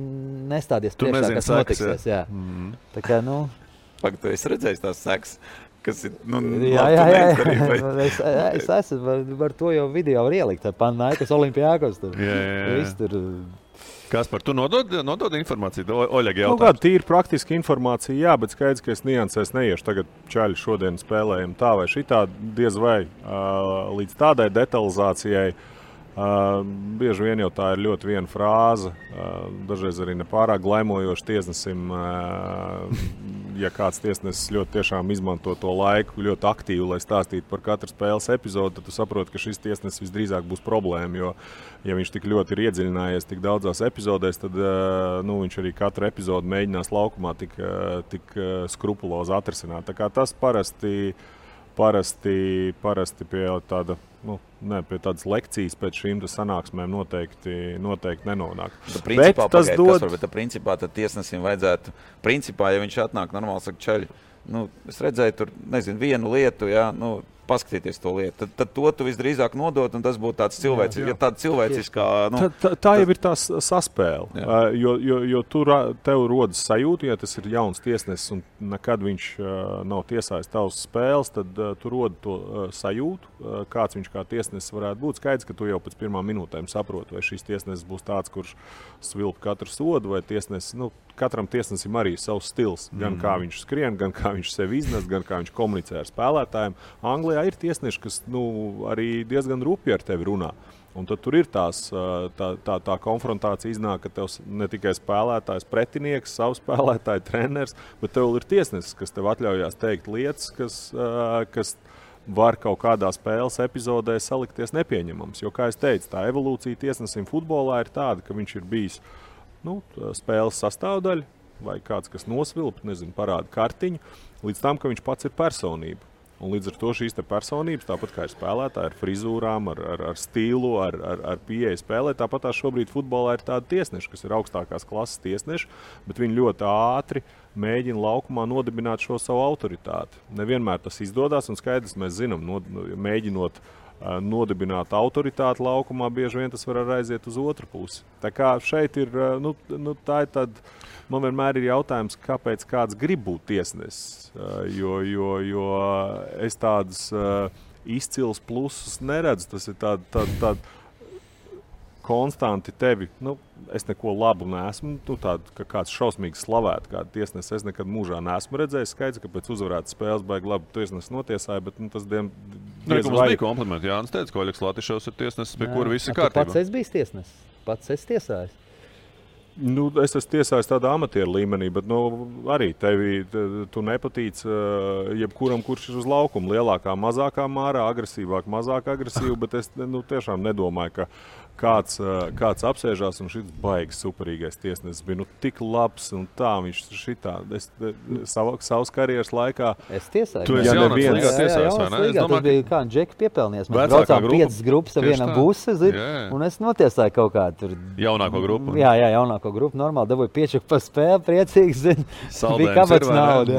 nestādies priekšā, kas notiksies. Jā. Tā kā,
Pagaid, tu esi redzējis tās sekas, kas ir,
jā. Es esmu, var to jau video var ielikt, Panathinaikos Olimpiakos tur. Viss tur...
Kaspar, tu nodod informāciju? Oļegi jautājums.
Kāda tīra praktiska informācija, jā, bet skaidrs, ka es niansēs neiešu. Tagad čaļi šodien spēlējam tā vai šitā, diez vai līdz tādai detalizācijai. Bieži vien jau tā ir ļoti viena frāze, dažreiz arī nepārāk glaimojoši tiesnesim. Ja kāds tiesnesis ļoti tiešām izmanto to laiku ļoti aktīvi, lai stāstītu par katru spēles epizodu, tad tu saproti, ka šis tiesnesis visdrīzāk būs problēma, jo, ja viņš tik ļoti ir iedziļinājies tik daudzās epizodēs, tad viņš arī katru epizodu mēģinās laukumā tik skrupulozi atrisināt. Tā kā tas parasti pie tāda, pie tādas lekcijas pēc šīm sanāksmēm noteikti nenonāk.
Principā tad tiesnesim vajadzētu, ja viņš atnāk normāli, saka, čaļi, es redzēju tur, vienu lietu, jā, paskatīties to lietu. Tad to tu visdrīzāk nodot, un tas būtu tāds cilvēciskā...
Tā jau ir tā saspēle, jo tev rodas sajūta, ja tas ir jauns tiesnesis un nekad viņš nav tiesājis tavas spēles, tad tu rodi to sajūtu, kāds viņš kā tiesnesis varētu būt. Skaidrs, ka tu jau pēc pirmām minūtēm saproti, vai šis tiesnesis būs tāds, kurš svilp katru sodu, vai tiesnesis, katram tiesnesim arī savs stils, gan kā viņš skrien, gan kā viņš sevi iznes, gan kā viņš komunicē ar spēlētājiem. Anglijā ir tiesneši, kas arī diezgan rupji ar tevi runā. Un tad tur ir tā konfrontācija iznāk, ka tev ne tikai spēlētājs, pretinieks, savs spēlētāji, treneris, bet tev ir tiesnesis, kas tev atļaujās teikt lietas, kas var kaut kādā spēles epizodē salikties nepieņemams. Jo, kā es teicu, tā evolūcija tiesnesim futbolā ir tāda, ka viņš ir bijis spēles sastāvdaļa vai kāds, kas nosvilp, parāda kartiņu, līdz tam, ka viņš pats ir personība. Un līdz ar to šīs personības, tāpat kā ir spēlētāji, ar frizūrām, ar stilu, ar pieeju spēlē, tāpat šobrīd futbolā ir tādi tiesneši, kas ir augstākās klases tiesneši, bet viņi ļoti ātri mēģina laukumā nodibināt šo savu autoritāti. Nevienmēr tas izdodas, un skaidrs, mēs zinām, mēģinot nodibināt autoritāti laukumā, bieži vien tas var aiziet uz otru pusi. Tā kā šeit ir, tā ir tad, man vienmēr ir jautājums, kāpēc kāds grib būt tiesnesis, jo es tādas izcils plusus neredzu, tas ir tāda konstanti tevi, es neko labu neesmu, tādu, ka kāds šausmīgi slavēt, kādu tiesnesi es nekad mūžā neesmu redzējis. Skaidrs, ka pēc uzvarētas spēles baigi labi tiesnesi notiesāja, bet tas
mums bija komplimenti. Jānis teica, ka Oļegs Latišovs ir tiesnesis, pie kura viss ir kārtībā.
Pats es biju tiesnesis, pats es tiesājis.
Es esmu tiesājis tādā amatieru līmenī, bet arī tu nepatīc jebkuram, kurš ir uz laukuma. Lielākā, mazākā mārā, agresīvāk, mazāk agresīvi, bet es tiešām nedomāju, ka kāds apsēžās un šis baigs superīgais tiesnesis bija tik labs un tā viņš šitā. Savas karjeras laikā.
Es tiesāju.
Tu esi jaunāks līgā tiesājis, vai ne?
Tas bija kā Džeki piepelnies. Mēs braucām 5 grupas ar vienam busi, un es notiesāju kaut kādu tur.
Jaunāko grupu?
Jā, jaunāko grupu. Normāli dabūju piečuku par spēli, priecīgs. Bija kabats nauda.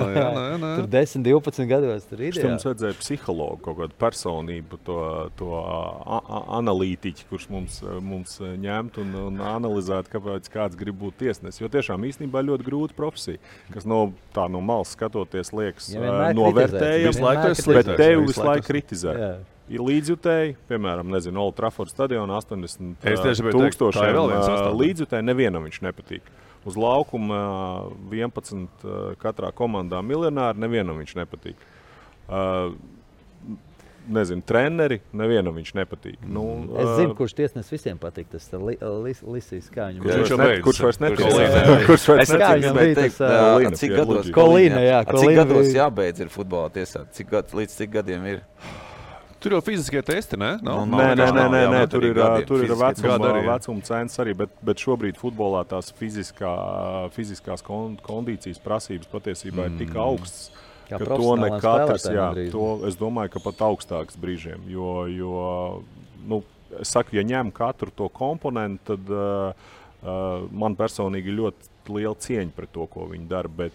Tur 10, 12 gados. Tur ideāli.
Mums vajadzēja psihologu, kaut kādu personību, to analītiķi, kurš mums ņemt un analizēt, kāpēc kāds grib būt tiesnesis. Jo tiešām īstenībā ļoti grūta profesija, kas no malas skatoties liekas novērtējams, bet tevi visu laiku kritizē. Ir līdzjutēji, piemēram, Old Trafford stadionā 80,000 līdzjutēji, nevienam viņš nepatīk. Uz laukuma 11 katrā komandā miljonāri, nevienam viņš nepatīk. Treneri, nevienam viņš nepatīk.
Es zinu, kurš tiesnesis visiem patīk. Tas Lisīs Kāņu.
Kurš vairs
nepatīk? Cik gados?
Kolīna, jā.
Cik gados jābeidz ir futbolā tiesāt? Līdz cik gadiem ir?
Tur jau fiziskie testi, ne?
Nē, tur ir vecuma cenas arī, bet šobrīd futbolā tās fiziskās kondīcijas prasības patiesībā ir tik augstas, ka to ne katrs, es domāju, ka pat augstāks brīžiem, jo es saku, ja ņem katru to komponentu, tad man personīgi ļoti liela cieņa pret to, ko viņi dara, bet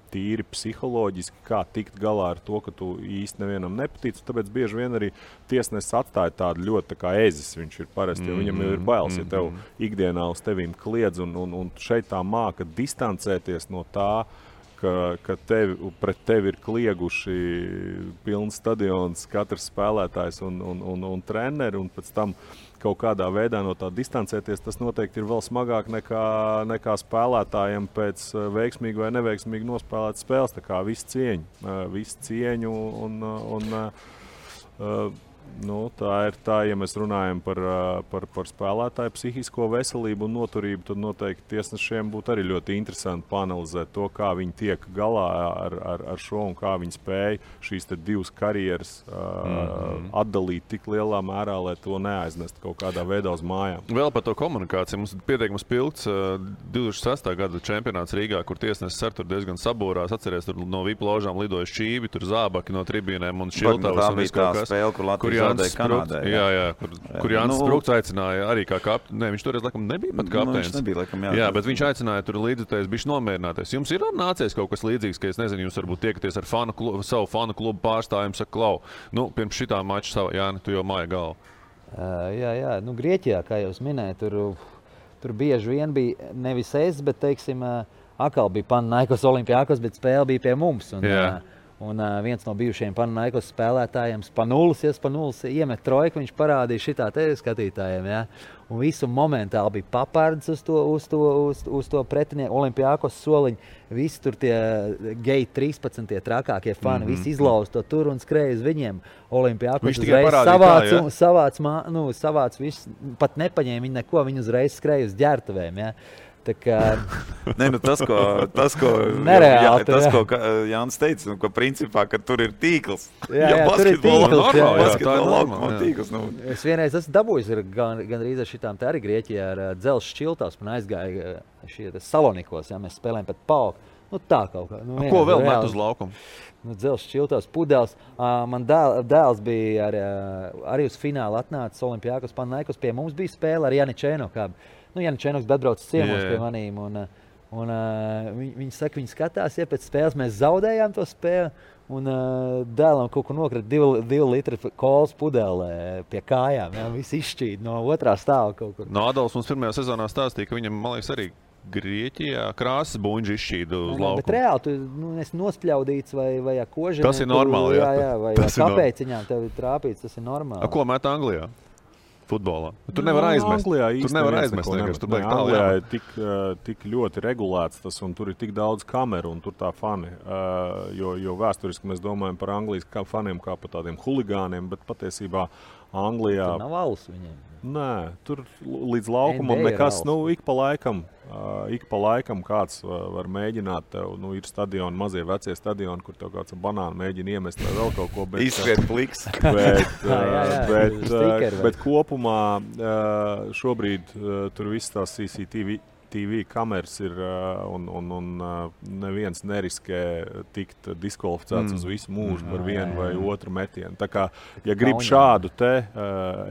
tīri psiholoģiski, kā tikt galā ar to, ka tu īsti nevienam nepatīc, tāpēc bieži vien arī tiesnesis atstāja tādu ļoti tā kā ezis viņš ir parasti, jo viņam jau ir bailes, ja tev ikdienā uz tevīm kliedz, un šeit tā māka distancēties no tā, ka pret tevi ir klieguši pilns stadions, katrs spēlētājs un treneri, un pēc tam kaut kādā veidā no tā distancēties, tas noteikti ir vēl smagāk nekā spēlētājiem pēc veiksmīgi vai neveiksmīgi nospēlēt spēles. Tā kā visu cieņu tā ir tā, ja mēs runājam par spēlētāju psihisko veselību un noturību, tad noteikti tiesnešiem būtu arī ļoti interesanti paanalizēt to, kā viņi tiek galā ar šo un kā viņi spēja šīs te divas karjeras atdalīt tik lielā mērā, lai to neaiznest kaut kādā veidā uz mājām.
Vēl par to komunikāciju. Mums pietiekams pilns 2006. Gada čempionāts Rīgā, kur tiesnesis ar tur diezgan sabūrās. Atceries, tur no VIP ložām lidoja šķīvi, tur zābaki no tribīnēm un šiltavas un viss kaut kas. Kur Jānis Sprūks aicināja arī kā kapteinis. Nē, viņš toreiz laikam nebija pat kapteinis.
Viņš nebija laikam,
jā, bet viņš aicināja tur līdzutējus bišķi nomierināties. Jums ir nācies kaut kas līdzīgs, ka es nezinu, jūs varbūt tiekaties ar savu fanu klubu pārstāvjumu, saka, klau, pirms šitā mača Jāni, tu jau māja galvu.
Jā, Grieķijā, kā jau es minēju, tur bieži vien bija nevis es, bet, teiksim, atkal bija Panathinaikos Olimpiakos, bet spēle bija pie mums. Un viens no bijušajiem Panathinaikos spēlētājiem Spanulis iemet trojku, viņš parādīja šitā te skatītājiem, jā. Un visu momentāli bija papards uz to pretinieku Olimpiakos soliņu. Visi tur tie geji 13, tie trakākie fani, visi izlauza to tur un skrēja uz viņiem. Olimpiakos uzreiz savāc visu, pat nepaņēma viņi neko, viņi uzreiz skrēja uz ģērtuvēm, jā.
Tas, ko Jānis teica, ka principā, ka tur ir tīkls.
Jā, tur ir tīkls.
Tīkls.
Es vienreiz esmu dabūjis gan rīz ar šitām te arī Grieķijā ar dzelzs šķiltās, man aizgāja šie Salonikos, jā, mēs spēlējam pat pauku. Tā kaut kā.
Ko vēl met uz laukumu?
Dzelzs šķiltās, pudeles. Man dēls bija arī uz finālu atnācis Olimpiakos Panathinaikos, pie mums bija spēle ar Janičēno kādu. Janičēnoks atbrauc ciemos pie manīm, un viņi saka, viņi skatās, ja pēc spēles mēs zaudējām to spēli, un dēlam kaut ko nokrita 2 litri kolas pudelē pie kājām, jā, visi izšķīd no otrā stāva kaut kur.
Adolfs mums pirmajā sezonā stāstīja, ka viņam, man liekas, arī Grieķijā krāsas buņģi izšķīda uz laukumu.
Bet reāli, tu esi nospļaudīts vai kožanē.
Tas ir normāli,
jā. Vai kāpēciņām tev ir trāpīts, tas ir normāli.
Ko met Anglijā? Futbolā. Tur nevar aizmest. Tur nevar aizmest.
Anglijā ir tik ļoti regulēts tas, un tur ir tik daudz kameru, un tur tā fani. Jo vēsturiski mēs domājam par Anglijas faniem kā par tādiem huligāniem, bet patiesībā Anglijā...
Tur nav alus viņiem.
Nē, tur līdz laukumam nekas, ik pa laikam kāds var mēģināt, tev, ir stadioni, mazie vecie stadioni, kur tev kāds banānu mēģina iemest vai vēl kaut ko,
izskriet pliks.
Bet kopumā šobrīd tur viss tās CCTV kameras ir un neviens neriskē tikt diskvalificēts uz visu mūžu par vienu vai otru metienu. Tā kā, ja grib šādu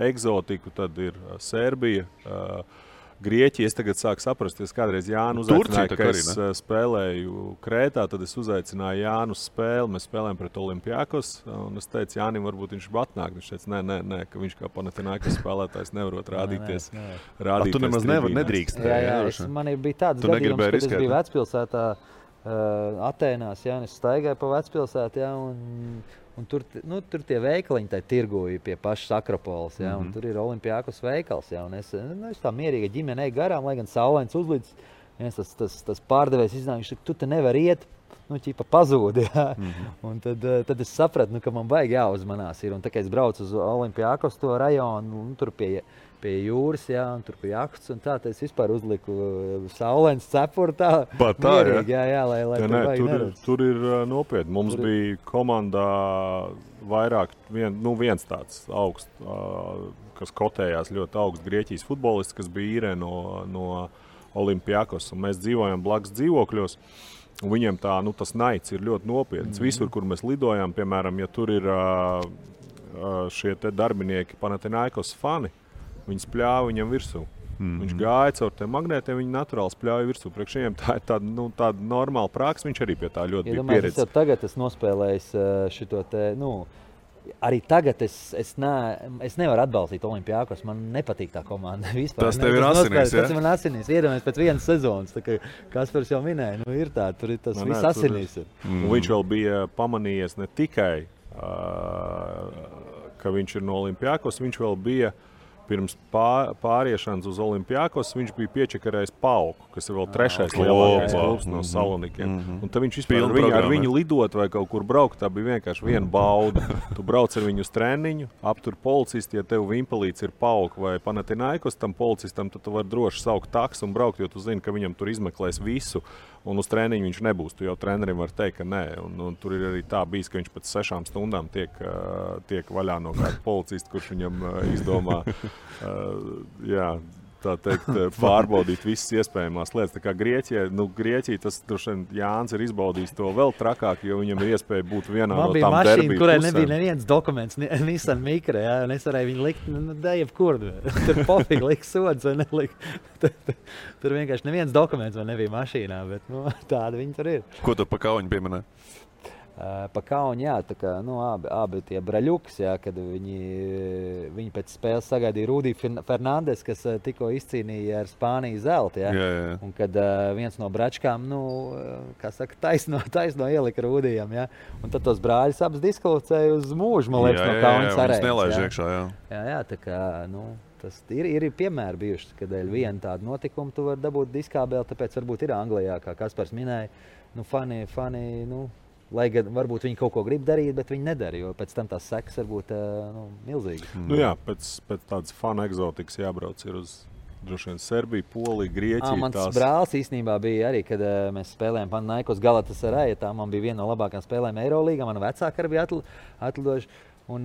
egzotiku, tad ir Serbija, Grieķija. Es tagad sāku saprast, es kādreiz Jānu uzaicināju, ka es spēlēju Krētā, tad es uzaicināju Jānu uz spēli, mēs spēlējam pret Olimpiakos, un es teicu, Jānim, varbūt viņš atnāk. Viņš teica, nē, ka viņš kā Panathinaikos spēlētājs nevarot rādīties.
Tu nemaz nedrīkst.
Man bija tāds gadījums, kad es biju vecpilsētā Atēnās, es staigāju pa vecpilsētu, un tur tie veikaliņi tai tirgoja pie pašas Akropoles, un tur ir Olimpiakos veikals, un es tā mierīga ģimenei garām, lai gan saulains uzlīdz, tas pārdevējs iznāk, tu te nevar iet, ķipa pazūdi, un tad es sapratu, ka man baigi jāuzmanās ir, un tā kā es braucu uz Olimpiakos to rajonu, tur pie jūras, un tur pie jahtas, un tā, es vispār uzliku saulains cepuru tā mierīgi, lai tur baigi neredz.
Tur ir nopietni. Mums bija komandā vairāk, viens tāds augsts, kas kotējās ļoti augsts Grieķijas futbolists, kas bija īrē no Olimpiakos, un mēs dzīvojam blakus dzīvokļos. Un viņiem tas naids ir ļoti nopietns. Visur, kur mēs lidojām, piemēram, ja tur ir šie te darbinieki Panathinaikos fani, viņi spļāva viņam virsū. Viņš gāja caur tiem magnētiem, viņi naturāli spļāja virsū. Priekš viņiem tā ir tāda normāla praksa, viņš arī pie tā ļoti bija pieredzis.
Es jau tagad esmu nospēlējis šito te, arī tagad es nevaru atbalstīt Olimpiakos, man nepatīk tā komanda vispār.
Tas tev ir asinīs,
Tas man asinīs, iedomājies pēc vienas sezonas, tā kā Kaspars jau minēja, ir tā, tur ir tas viss asinīs.
Viņš vēl bija pamanījies ne tikai, ka viņš ir no Olimpiakos, viņš vēl bija pirms pāriešanas uz Olimpiakos, viņš bija piečakarējis Pauku, kas ir vēl trešais lielākais klubs no Salonikiem. Un tad viņš vispār ar viņu lidot vai kaut kur braukt, tā bija vienkārši viena bauda. Tu brauc ar viņu uz treniņu, aptur policisti, ja tev vimpelīts ir Pauka vai Panathinaikos, tam policistam, tad tu vari droši saukt taksu un braukt, jo tu zini, ka viņam tur izmeklēs visu. Un uz treniņu viņš nebūs. Tu jau trenerim var teikt, ka nē. Un tur ir arī tā bijis, ka viņš pēc 6 stundām tiek vaļā no kāda policista, kurš viņam izdomā tā teikt, pārbaudīt visas iespējamās lietas. Tā kā Grieķija, tas droši vien Jānis ir izbaudījis to vēl trakāk, jo viņam ir iespēja būt vienā no tām derbiju pusēm.
Man bija mašīna, kurai nebija neviens dokuments, Nissan Micra, un es varēju viņu likt, jebkur. Tur pofīgi likt sods vai nelikt. Tur vienkārši neviens dokuments vēl nebija mašīnā, bet tāda viņi tur ir.
Ko tu pa Kauņu pieminēji?
Pa Kauni, tā kā, abi tie braļuks, kad viņi pēc spēles sagaidīja Rudī Fernandes, kas tikko izcīnīja ar Spāniju zeltu, un kad viens no bračkām, taisno ielika Rudijam, un tad tos brāļus abas diskvalificēja uz mūžu, man liekas, no Kaunas arēnas.
Nelaiž iekšā,
tā kā, tas ir piemēri bijuši, kad viena tāda notikuma tu vari dabūt diskābeli, tāpēc varbūt ir Anglijā, kā Kaspars minēja, fani, lai gan varbūt viņi kaut ko grib darīt, bet viņi nedara, jo pēc tam tās sekas var būt milzīgas.
Pēc tādas fana egzotikas jābrauc ir uz droši vien Serbiju, Poliju, Grieķiju.
Mans brālis īstenībā bija arī, kad mēs spēlējām Panathinaikos Galatasarayā, tā man bija viena no labākajām spēlēm Eirolīgā, mana vecāka arī bija atlidojuši. Un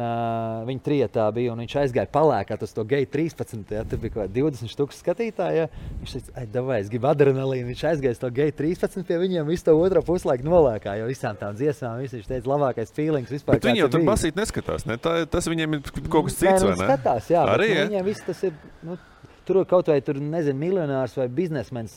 viņi trietā bija, un viņš aizgāja palēkāt uz to Gate 13. Tur bija kaut 20 000 skatītāji. Viņš teica, davai, es gribu adrenalīnu. Viņš aizgāja uz to Gate 13 pie viņiem, visu to otro puslaiku nolēkā, jo visām tām dziesmām viņš teica, labākais feelings vispār.
Bet viņi jau tur basīt neskatās, ne? Tas viņiem ir kaut kas cits, vai ne?
Skatās, jā, arī, bet viņiem viss tas ir... Tur kaut vai miljonārs vai biznesmens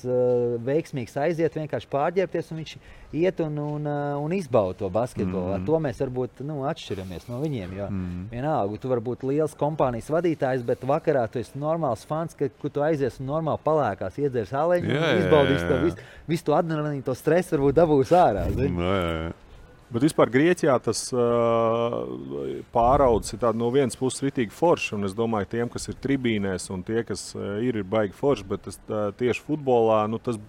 veiksmīgs aiziet, vienkārši pārģērbties, un viņš iet un izbauda to basketbolu. Ar to mēs varbūt atšķiramies no viņiem, jo vienalga, tu vari būt liels kompānijas vadītājs, bet vakarā tu esi normāls fans, kur tu aizies un normāli palēkās, iedzers aleņu un izbaudīs to visu to adrenalīnu, to stresu varbūt dabūs ārā.
Bet vispār Grieķijā tas pāraudzis ir no vienas puses ritīgi forši, un es domāju, tiem, kas ir tribīnēs un tie, kas ir baigi forši, bet tieši futbolā, tas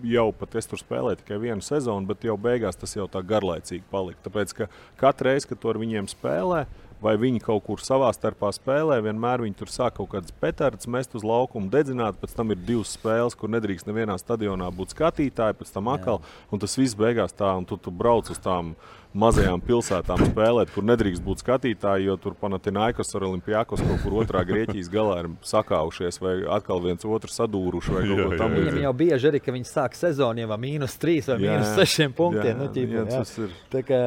jau pat es tur spēlēju tikai vienu sezonu, bet jau beigās tas jau tā garlaicīgi palika. Tāpēc, ka katru reizi, kad tu ar viņiem spēlē, vai viņi kaut kur savā starpā spēlē. Vienmēr viņi tur sāk kaut kādas petardas mest uz laukumu, dedzināt. Pēc tam ir 2 spēles, kur nedrīkst nevienā stadionā būt skatītāji, pēc tam atkal. Un tas viss beigās tā, un tu brauc uz tām mazajām pilsētām spēlēt, kur nedrīkst būt skatītāji, jo tur Panathinaikos ar Olimpiakos kaut kur otrā Grieķijas galā ir sakaušies vai atkal viens otru sadūruši vai kaut ko tam.
Viņam jau bieži arī, ka viņi sāk sezonu jau -3 vai -6 punktiem. Tas
ir.
Tā kā...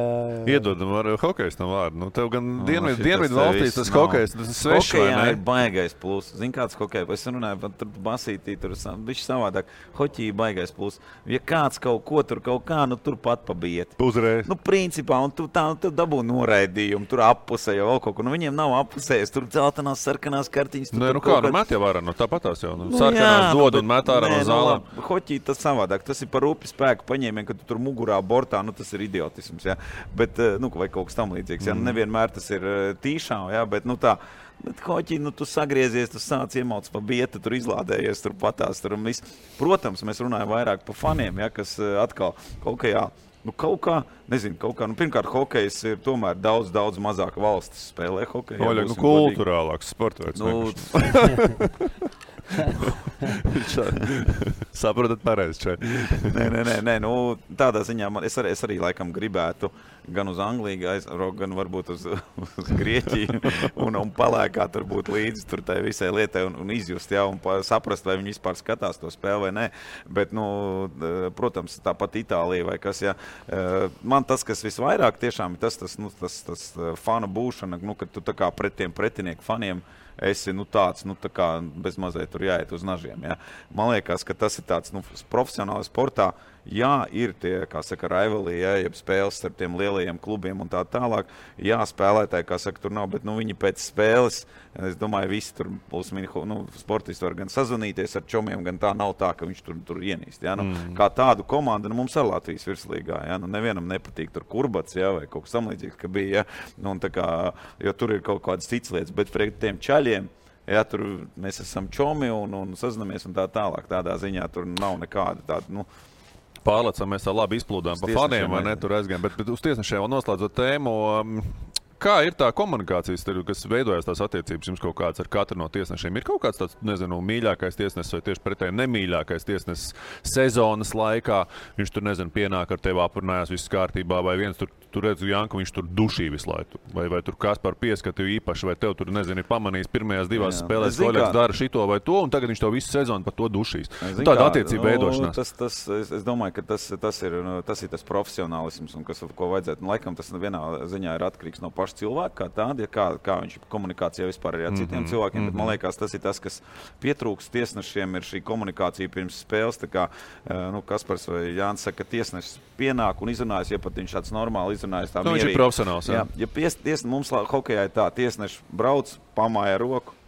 Iedodam ar hokejs tam vārdu. Nu, tev gan dienvidu valstīs tas hokejs, tas svešs, vai ne?
Hokejā ir baigais plus. Zini, kāds hokejs? Es runāju, tur basītī, tur bišķi savādāk. Hoķī baigais plus. Ja kāds kaut ko tur kaut kā, nu tur pat pabiet.
Uzreiz.
Nu, principā, un tu dabū noraidījumu, tur appusē jau kaut ko. Nu, viņiem nav appusējas, tur dzeltenās, sarkanās kartiņas.
Nē, nu kā, met jau ārā, tāpatās jau. Sarkanās dod un met ārā no zālēm.
Hoķī tas savādāk, tas ir par rupi spēku paņēmienu, kad tu tur mugurā bortā, nu tas ir idiotisms, jā. Bet, nu, vai kaut kas tam līdzīgs, jā. Nevienmēr tas ir tīšām, jā, bet, nu tā. Bet hoķī, nu tu sagriezies, tu sāc iemauc pa bietu, tur izlādējies, tur patās, tur un viss. Protams, mēs runājam vairāk par faniem, jā, kas atkal hokejā. Nu, kaut kā, nezinu, nu, pirmkārt, hokejs ir tomēr daudz mazāk valstis spēlē hokeju.
Oļa, nu, kulturālāks sportveids.
Nu,
Saprotat pareizi šeit.
Nē, nu, tādā ziņā es arī laikam gribētu gan uz Angliju aizraukt, gan varbūt uz Grieķiju un palēkā tur būt līdzi tur tai visai lietai un izjust, jā, un saprast, vai viņi vispār skatās to spēli vai nē. Bet, nu, protams, tāpat Itālija vai kas, jā. Man tas, kas visvairāk tiešām ir tas fanu būšana, nu, kad tu tā kā pret tiem pretinieku faniem esi, nu, tāds, nu, tā kā bez mazliet tur jāiet uz nažiem, jā. Man liekas, ka tas ir tāds, nu, profesionāli sportā, jā, ir tie, kā saka, rivalī, jā, jeb spēles starp tiem lielajiem klubiem un tā tālāk. Jā, spēlētāji, kā saka, tur nav, bet, nu, viņi pēc spēles, es domāju, visi tur sportisti var gan sazvanīties ar čomiem, gan tā nav tā, ka viņš tur ienīst, jā. Nu, kā tādu komandu, nu, mums ar Latvijas virslīgā, jā, nu, nevienam nepatīk tur Kurbats, jā, vai kaut kas samlīdzīgs, ka bija, jā, nu, un tā kā, jo tur ir kaut kādas cits lietas, bet pret tiem čaļiem, jā, tur mēs esam čomi un sazinamies un tā tālāk, tādā ziņā tur nav nekāda tāda, nu,
Pārlecam, mēs tā labi izplūdām pa faniem, vai ne, tur aizgājām, bet uz tiesnešiem vēl noslēdzot tēmu, kā ir tā komunikācijas, kas veidojas tās attiecības jums kaut kāds ar katru no tiesnešiem? Ir kaut kāds tāds, nezinu, mīļākais tiesnesis vai tieši pretēji nemīļākais tiesnesis sezonas laikā? Viņš tur, nezinu, pienāk ar tevi aprunājās viss kārtībā, vai viens tur redzu Janku, viņš tur dušī visu laiku. Vai tur Kaspar pieskatīja īpaši, vai tev tur, nezinu, ir pamanījis pirmajās 2 spēlēs, ka Oļegs dara šito vai to, un tagad viņš to visu sezonu par to dušīs. Tāda attiecība veidošanās.
Es domāju, ka tas ir tas profesionālisms, un ko vajadzētu. Un, laikam tas vienā ziņā ir atkarīgs no paša cilvēka, kā tāda, kā viņš komunikācijā vispār ir ar citiem cilvēkiem, bet man liekas, tas ir tas, kas pietrūkst tiesnešiem, ir šī komunikācija pirms spēles, tā kā, nu, Kaspars vai Jānis saka, ka tiesnešs pienāk un izrunājas, ja pat viņš tāds normāli izrunājas tā mierīgi.
Viņš ir profesionāls, jā.
Ja mums hokejā ir tā, tiesneši brauc, pamāja roku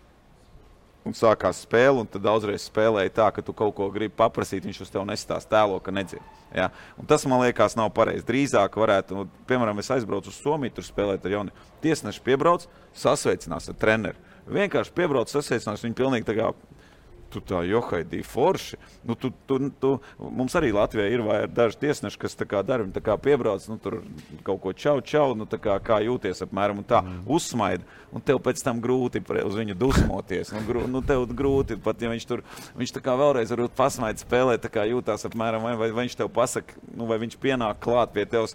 un sākās spēle, un tad daudzreiz spēlēja tā, ka tu kaut ko gribi paprasīt, viņš uz tev nesitās tēlo, ka nedzird. Ja? Un tas, man liekas, nav pareizi. Drīzāk varētu, nu, piemēram, es aizbraucu uz Somiju, tur spēlēt ar jauni. Tiesneši piebrauc, sasveicinās ar treneri. Vienkārši piebrauc, sasveicinās, viņi pilnīgi tā kā tu tā johaidī forši. Nu, mums arī Latvijā ir daži tiesneši, kas tā kā dara, viņi tā kā piebrauc, nu, tur kaut ko čau, nu, tā kā jūties apmēram un tā uzsmaida. Un tev pēc tam grūti uz viņu dusmoties. Nu, tev grūti, pat ja viņš tā kā vēlreiz varbūt pasmaida spēlē, tā kā jūtās apmēram, vai viņš tev pasaka, nu, vai viņš pienāk klāt pie tevs.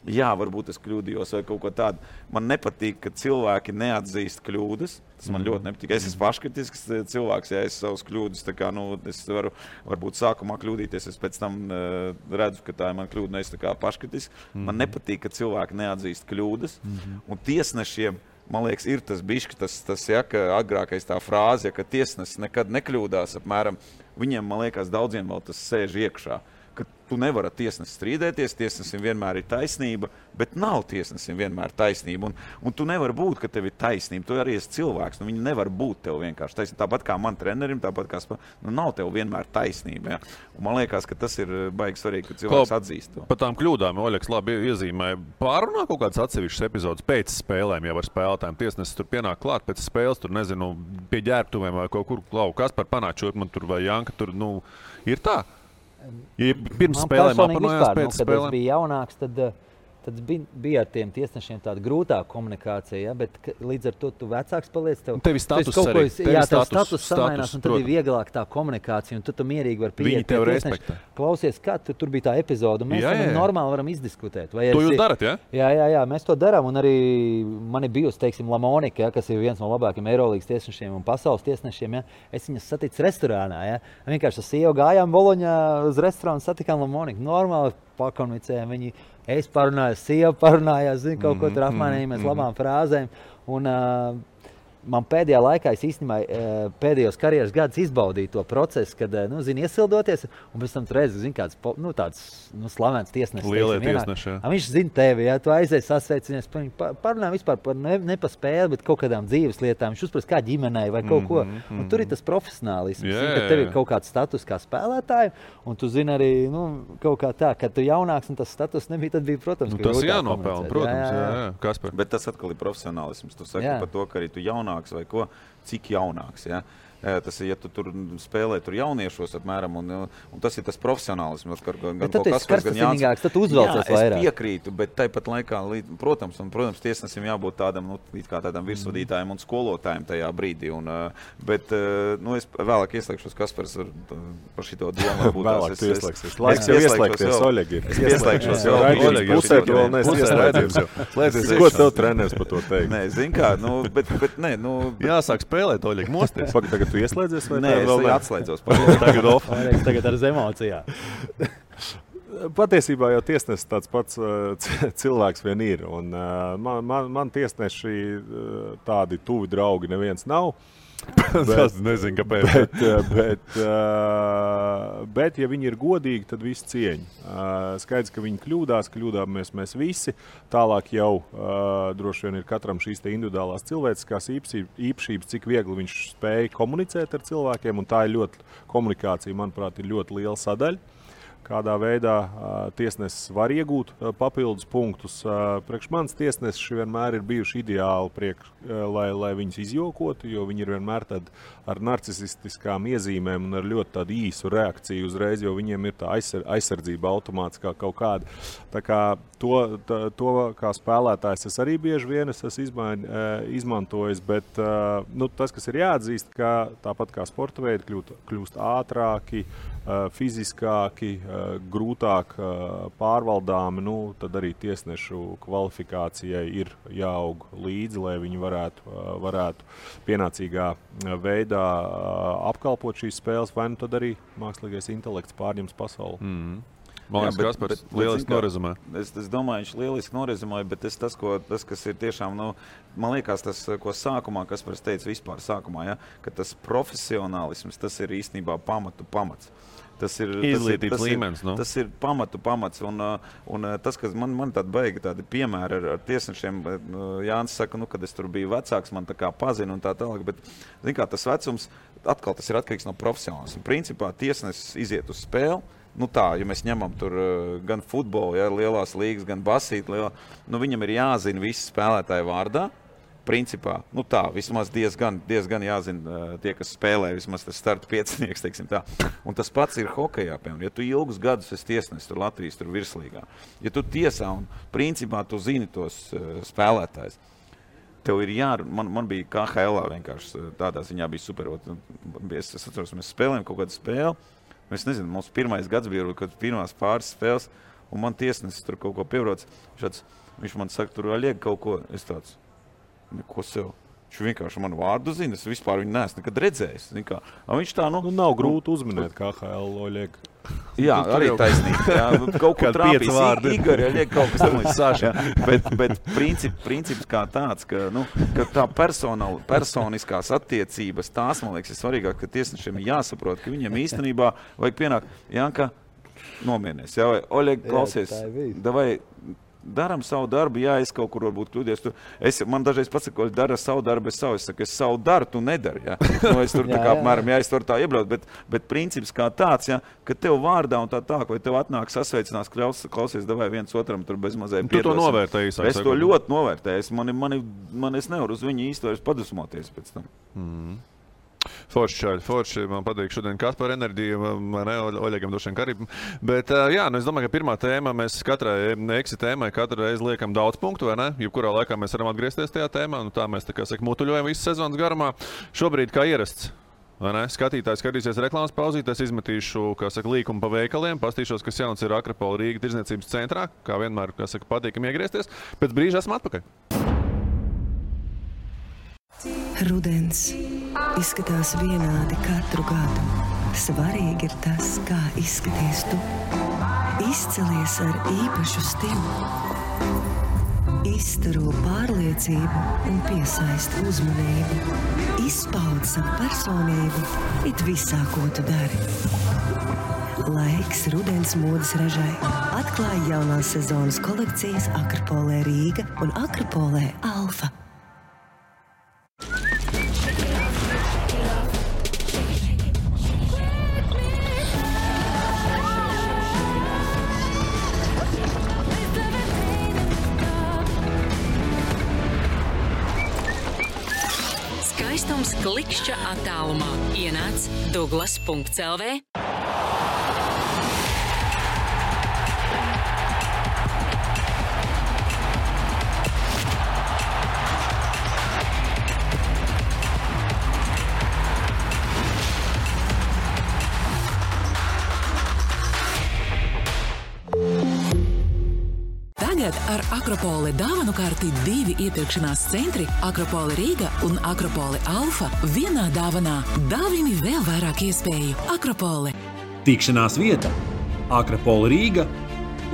Jā, varbūt es kļūdījos vai kaut ko tādu. Man nepatīk, ka cilvēki neatzīst kļūdas. Tas man ļoti nepatīk. Es esmu paškritisks cilvēks, ja es savus kļūdas, tā kā, nu, es varu varbūt sākumā kļūdīties, es pēc tam redzu, ka tā ir man kļūda, es tā kā paškritisks. Man nepatīk, ka cilvēki neatzīst kļūdas. Un tiesnešiem, man liekas, ir tas bišķi, tas ja, ka agrākais tā frāze, ja, ka tiesnesis nekad nekļūdās apmēram. Viņiem, man liekas, daudziem vēl tas sēž iekšā. Ka tu nevari ar tiesnesi strīdēties, tiesnesim vienmēr ir taisnība, bet nav tiesnesim vienmēr taisnība. Un tu nevari būt, ka tev ir taisnība. Tu arī esi cilvēks, nu viņi nevar būt tev vienkārši taisnība. Tāpat kā man trenerim, tāpat kā nu nav tev vienmēr taisnība. Ja? Un man liekas, ka tas ir baigi svarīgi, ka cilvēks atzīst to.
Par tām kļūdām Oļegs labi iezīmēja. Pārunā kaut kādas atsevišķas epizodes pēc spēlēm jau ar spēlētājiem. Tiesnesis tur pienāk klāt pēc spēles, tur nezinu, pie ģērbtuvēm vai kaut kur Kaspar panāčot man tur vai Janka tur, nu, ir tā. Ja pirms spēlēm aprunājās, pēc spēlēm.
Kad es biju jaunāks, tad tad bija ar tiem tiesnešiem tāda grūtāka komunikācija, ja? Bet līdz ar to tu vecāks paliec.
Tev ir status arī.
Jā, tev status samainās, un tad ir vieglāk tā komunikācija, un tu mierīgi vari pieiet.
Viņi tev respektē.
Klausies, kā tur bija tā epizoda, un mēs normāli varam izdiskutēt.
To jūs darat, ja?
Jā, mēs to darām, un arī man ir bijusi, teiksim, Lamonika, ja, kas ir viens no labākiem Eirolīgas tiesnešiem un pasaules tiesnešiem, ja? Es viņas saticu restorānā, ja? Vienkārši ar sievu gājām Boloņā uz restorānu, satikām Lamoniku. Normāli pakomunicējām, viņi parunājās, sieva parunājās, kaut ko tur apmainījāmies labām frāzēm. Un man pēdējā laikā, es īstenībā pēdējos karjeras gadus izbaudīju to procesu, kad, iesildoties, un pēc tam tu redzi, kāds tāds slavens tiesnesis.
Lielie tiesneši, jā.
Viņš zina tevi, ja tu aizies sasveicinies, parunā vispār par ne pa spēli, bet kaut kādām dzīves lietām. Viņš uzprast kā ģimenei vai kaut ko. Un tur ir tas profesionālisms, ka tev ir kaut kāds status kā spēlētāju, un tu zini arī, kaut kā tā, kad tu jaunāks un tas status nebija, tad bija, protams, ka
tas jānopelna, protams, jā. Kaspar.
Bet tas atkal ir profesionālisms. Tu saki par to, ka arī tu jaunāks vai ko, cik jaunāks, ja? Tas ir, ja tu tur spēlē tur jauniešos apmēram, un tas ir tas profesionālisms.
Bet tad tas karstasinīgāks, tad uzvelcies vairāk.
Es piekrītu, bet tāpat laikā, protams, tiesnesim jābūt tādam, tādam virsvadītājam un skolotājam tajā brīdī. Bet es vēlāk ieslēgšos Kaspars par šito domu.
Vēlāk tu ieslēgsies. Laiks jau ieslēgties, Oļegi.
Es ieslēgšos jau.
Oļegi, pusē tu vēl neesi ieslēdzies. Ko tev treneris par to teikt?
Nē, zin kā, bet nē.
Jāsāk spēlēt, Oļegi, mosties.
Tu ieslēdzies vai
nē, es atslēdzos.
Tagad ar emocijām.
Patiesībā jau tiesnesis tāds pats cilvēks vien ir. Un, man tiesneši tādi tuvi draugi neviens nav.
Es nezinu, kāpēc.
Bet, ja viņi ir godīgi, tad visi cieņa. Skaidrs, ka viņi kļūdāmies mēs visi. Tālāk jau droši vien ir katram šīs te individuālās cilvēciskās īpašības, cik viegli viņš spēja komunicēt ar cilvēkiem. Un tā ir komunikācija, manuprāt, ir ļoti liela sadaļa. Kādā veidā tiesnesis var iegūt papildus punktus. Priekš manis tiesneši vienmēr ir bijuši ideāli, lai viņus izjokotu, jo viņi ir vienmēr ar narcisistiskām iezīmēm un ar ļoti tādu īsu reakciju uzreiz, jo viņiem ir tā aizsardzība automātiskā kaut kāda. Tā kā to kā spēlētājs es arī bieži vien esmu izmantojis, bet tas, kas ir jāatzīst, ka tāpat kā sporta veidi kļūst ātrāki, fiziskāki, grūtāk pārvaldāmi, tad arī tiesnešu kvalifikācijai ir jāaug līdzi, lai viņi varētu pienācīgā veidā apkalpot šīs spēles, vai tad arī mākslīgais intelekts pārņems pasauli.
Man liekas, Kaspars lieliski norezumē.
Es domāju, viņš lieliski norezumēja, bet tas, kas ir tiešām, man liekas, tas, ko sākumā, Kaspars teica vispār sākumā, ja, ka tas profesionālisms, tas ir īstenībā pamats. Tas ir
izglītības līmenis.
Tas ir pamats. Un tas, kas man tādi piemēri ar tiesnešiem, Jānis saka, kad es tur biju vecāks, man tā kā pazina un tā tālāk, bet tas vecums, atkal tas ir atkarīgs no profesionālisma. Principā tiesnesis iziet uz spēli. Ja mēs ņemam tur gan futbolu, ja, lielās līgas, gan basīti, viņam ir jāzina visi spēlētāji vārdā. Principā, vismaz diezgan jāzina tie, kas spēlē, vismaz tas starta piecinieks, teiksim tā. Un tas pats ir hokejā, piemēram. Ja tu ilgus gadus esi tiesnesis tur Latvijas tur virslīgā, ja tu tiesā un principā tu zini tos spēlētājus, tev ir man bija KHL vienkārši tādā ziņā bija super. Es atceros, mēs spēlējam kaut kādu spēli. Es nezinu, mums pirmais gads bija, kad pirmās pāris spēles, un man tiesnesis tur kaut ko piebrauc. Viņš man saka, tur liek kaut ko. Es tāds, ko sev? Viņš vienkārši manu vārdu zina, es vispār viņu neesmu nekad redzējis. Viņš tā,
nav grūti uzminēt KHL Oļeg.
Jā, arī taisnīgi. Jā, kaut ko trāpīs. Igor, ja liek kaut kas tam līdz Saša. Bet princips kā tāds, ka tā personiskās attiecības, tās, man liekas, ir svarīgāk, ka tiesnešiem ir jāsaprot, ka viņiem īstenībā vajag pienākt, Janka, nomierinies. Jā, vai Oļeg, klausies, davai, daram savu darbu, jā, es kaut kur varbūt kļūdies. Man dažreiz pasaka, ka dara savu darbu, es saku, es savu daru, tu nedari. Ja? Es tur apmēram, es varu tā iebraukt, bet princips kā tāds, ja, ka tev vārdā un tā, vai tev atnāk sasveicinās, klausies, davai viens otram tur bez mazēm
piedalās. Tu to novērtēji, sāk.
Es to ļoti novērtēju. Es nevaru uz viņu īsti vairs padusmoties pēc tam.
Forši, man patīk šodien Kaspar enerģija, vai ne, Oļegam došiem karību. Bet, es domāju, ka pirmā tēma, mēs katrai eksi tēmai katru reizi liekam daudz punktu, vai ne? Jebkurā laikā mēs varam atgriezties tajā tēmā, tā mēs, tā kā saka, mutuļojam visu sezonas garumā. Šobrīd, kā ierasts, vai ne? Skatītājs skatīsies reklāmas pauzītes, izmetīšu, kā saka, līkumu pa veikaliem, pastīšos, kas jauns ir Akropola Rīga tirdzniecības centrā, kā vienmēr, kā saka, patīkam iegriezties. Pēc brīža esmu atpakaļ.
Rudens izskatās vienādi katru gadu. Svarīgi ir tas, kā izskaties tu. Izcelies ar īpašu stilu. Izstaro pārliecību un piesaista uzmanību. Izpaud savu personību it visā, ko tu dari. Laiks rudens modes ražai. Atklāj jaunās sezonas kolekcijas Akropolē Rīga un Akropolē Alfa.
Skaistums klikšķa attālumā. Ienāc Douglas.lv. Tagad ar Akropole dāvanu karti 2 iepirkšanās centri Akropole Rīga un Akropole Alfa vienā dāvanā. Dāvini vēl vairāk iespēju. Akropole.
Tikšanās vieta Akropola Rīga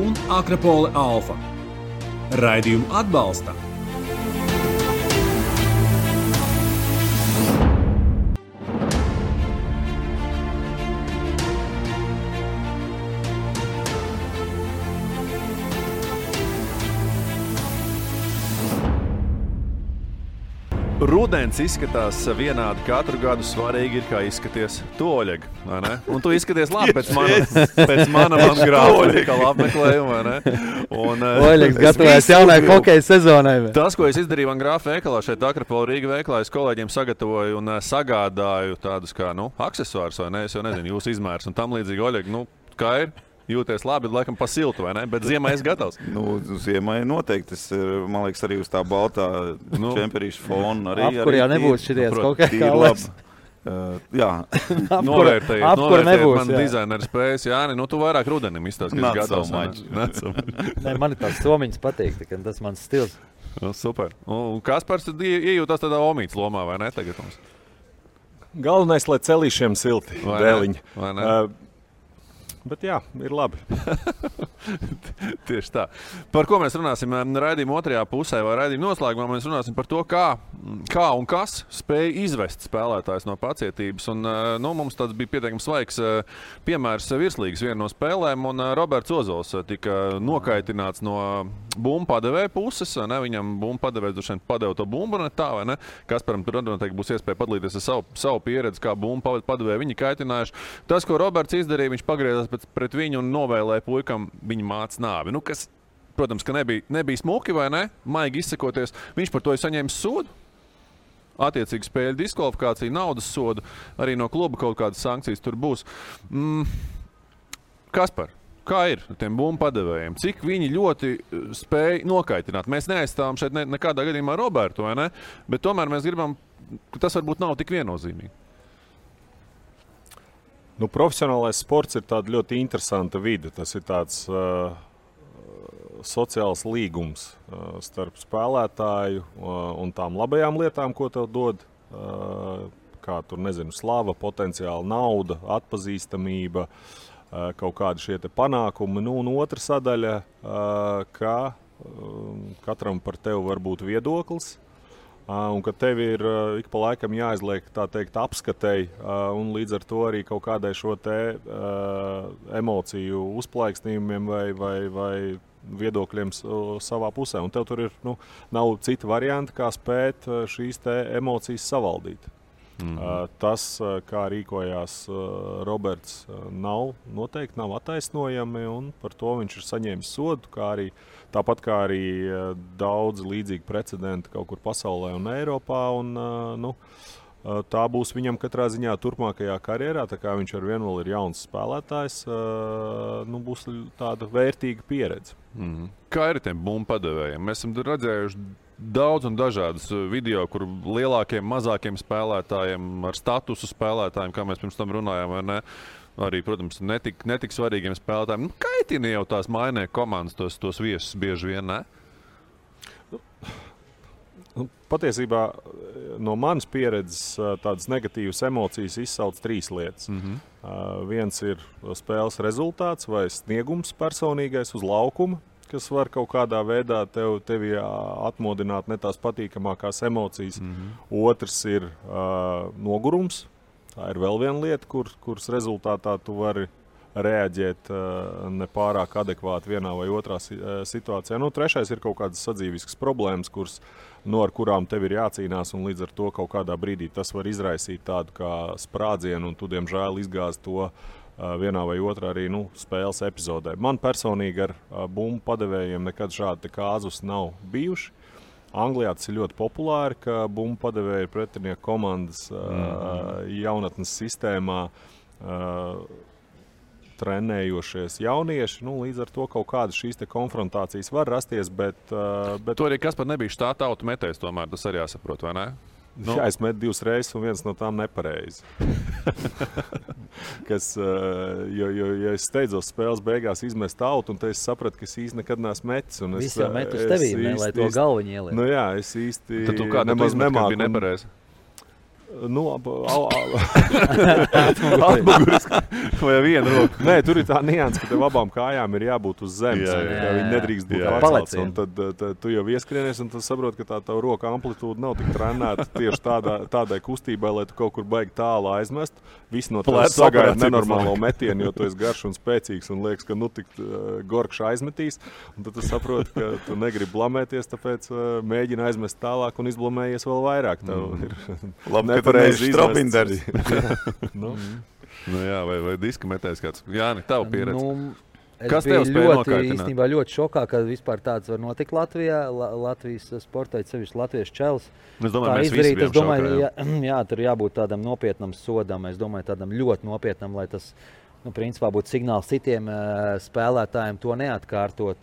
un Akropole Alfa. Raidījumu atbalsta
Rudens izskatās vienādi katru gadu, svarīgi ir, kā izskaties tu, Oļeg, vai ne? Un tu izskaties labi pēc mana grāfika apmeklējuma, vai ne?
Oļegs gatavojas jaunai hokeja sezonai.
Tas, ko es izdarīju man grāfa veikalā, šeit Akropola Rīga veikalā, es kolēģiem sagatavoju un sagādāju tādus kā, aksesuārus, vai ne? Es jau nezinu, jūsu izmērs un tam līdzīgi, Oļeg, kā ir? Jūties labi, laikam pa siltu, vai ne? Bet ziemai es gatavs.
Ziemai noteikti. Man liekas, arī uz tā baltā čemperīša fona.
Apkurjā nebūs šities kaut kā labs.
Jā.
Novērtējiet
nebūs,
man dizaineru spējas. Jāni, tu vairāk rudenim izstāst, ka es gatavs.
Man ir tās somiņas patīk, tas mans stils.
Super. Un Kaspars iejūtās tādā omītas lomā, vai ne? Tagad mums.
Galvenais, lai celīšiem silti. Dēliņi.
Vai ne?
Bet jā, ir labi.
Tieši tā. Par ko mēs runāsim raidījuma otrajā pusē vai raidījuma noslēgumā? Mēs runāsim par to, kā un kas spēja izvest spēlētājs no pacietības. Un, mums tāds bija pietiekami svaigs piemērs virslīgas viena no spēlēm, un Roberts Ozols tika nokaitināts no bumbu padevēja puses. Ne? Viņam bumbu padevējs droši vien padeva to bumbu, ne tā, vai ne? Kasparam tur noteikti būs iespēja padalīties ar savu pieredzi, kā bumbu padevēja viņi kaitinājuši. Tas, ko Roberts izdarīja, viņš pagriezās pret viņu un novēlēja puikam viņa mātes nāvi. Kas, protams, ka nebija smuki, vai ne? Maigi izsakoties. Viņš par to ir saņēmis sodu. Attiecīgi spēļu diskvalifikāciju, naudas sodu. Arī no kluba kaut kādas sankcijas tur būs. Kaspar, kā ir ar tiem bumbu padevējiem? Cik viņi ļoti spēja nokaitināt? Mēs neaizstāvam šeit nekādā gadījumā Robertu, vai ne? Bet tomēr mēs gribam, ka tas varbūt nav tik viennozīmīgi.
Profesionālais sports ir tāda ļoti interesanta vide. Tas ir tāds sociāls līgums starp spēlētāju un tām labajām lietām, ko tev dod. Kā tur, slava, potenciāla nauda, atpazīstamība, kaut kādi šie te panākumi. Un otra sadaļa, ka katram par tevi var būt viedoklis. Un ka tev ir ik pa laikam jāizliek, tā teikt, apskatei, un līdz ar to arī kaut kādai šo te emociju uzplaiksnījumiem vai viedokļiem savā pusē. Un tev tur ir, nav cita varianta, kā spēt šīs te emocijas savaldīt. Tas, kā rīkojās Roberts, noteikti nav attaisnojami, un par to viņš ir saņēmis sodu, tāpat kā arī daudz līdzīgi precedenti kaut kur pasaulē un Eiropā. tā būs viņam katrā ziņā turpmākajā karjerā. Tā kā viņš ar vienu vēl ir jauns spēlētājs, būs tāda vērtīga pieredze.
Kā ir tiem bumbu padevējiem? Mēs esam redzējuši daudz un dažādus video, kur lielākiem, mazākiem spēlētājiem, ar statusu spēlētājiem, kā mēs pirms tam runājām, vai ne? Arī, protams, netik svarīgiem spēlētājiem. Kaitina jau tās mainē komandas, tos viesus bieži vien, ne?
Patiesībā no manas pieredzes tādas negatīvas emocijas izsauc 3 lietas. Viens ir spēles rezultāts vai sniegums personīgais uz laukuma, kas var kaut kādā veidā tevi atmodināt ne tās patīkamākās emocijas. Otrs ir nogurums. Tā ir vēl viena lieta, kuras rezultātā tu vari reaģēt nepārāk adekvāti vienā vai otrā situācijā. Trešais ir kaut kādas sadzīviskas problēmas, ar kurām tev ir jācīnās, un līdz ar to kaut kādā brīdī tas var izraisīt tādu kā sprādzienu, un tu, diemžēl, izgāzi to vienā vai otrā arī spēles epizodē. Man personīgi ar bumbu padevējiem nekad šādi kāzus nav bijuši. Anglijā tas ir ļoti populāri, ka bumbu padevēja pretinieku komandas jaunatnes sistēmā trenējošies jaunieši. Līdz ar to kaut kādas šīs konfrontācijas var rasties, bet...
To arī Kaspar nebija štāta autometējs, tomēr tas arī jāsaprot, vai ne?
Jā, es metu 2 reizes, un viens no tām nepareizi. Jo es steidzos spēles beigās izmest autu, un es sapratu, ka es īsti nekad neesmu metis.
Viss jau met uz tevīm, lai to galviņu ieliek.
Jā, es īsti
tad tu kādu nemāku. Bija nepareizi?
Atmuguris vai viena roka. Nē, tur ir tā nianse, ka tev abām kājām ir jābūt uz zemes. Viņi nedrīkst būt atcelts. Un tad tu jau ieskrienies, un tad saproti, ka tā tava roka amplitūda nav tik trenēta tieši tādai kustībai, lai tu kaut kur baigi tālu aizmest. Visi no tevis sagaida nenormālo metienu, jo tu esi garš un spēcīgs un liekas, ka tik gorkš aizmetīs. Un tad tu saproti, ka tu negribi blamēties, tāpēc mēģini aizmest tālāk un izblamējies vēl vairāk.
Nepareizi Strobinders.
Jā, vai diska metējs kāds. Jāni, tava pieredze.
Kas tev spēja nokaitināt? Īstenībā ļoti šokā, ka vispār tāds var notikt Latvijā. Latvijas sportā, sevišķi latviešu čels.
Es domāju, mēs visi bijām šokā.
Jā, tur jābūt tādam nopietnam sodam. Es domāju, tādam ļoti nopietnam, lai tas, principā būtu signāls citiem spēlētājiem to neatkārtot.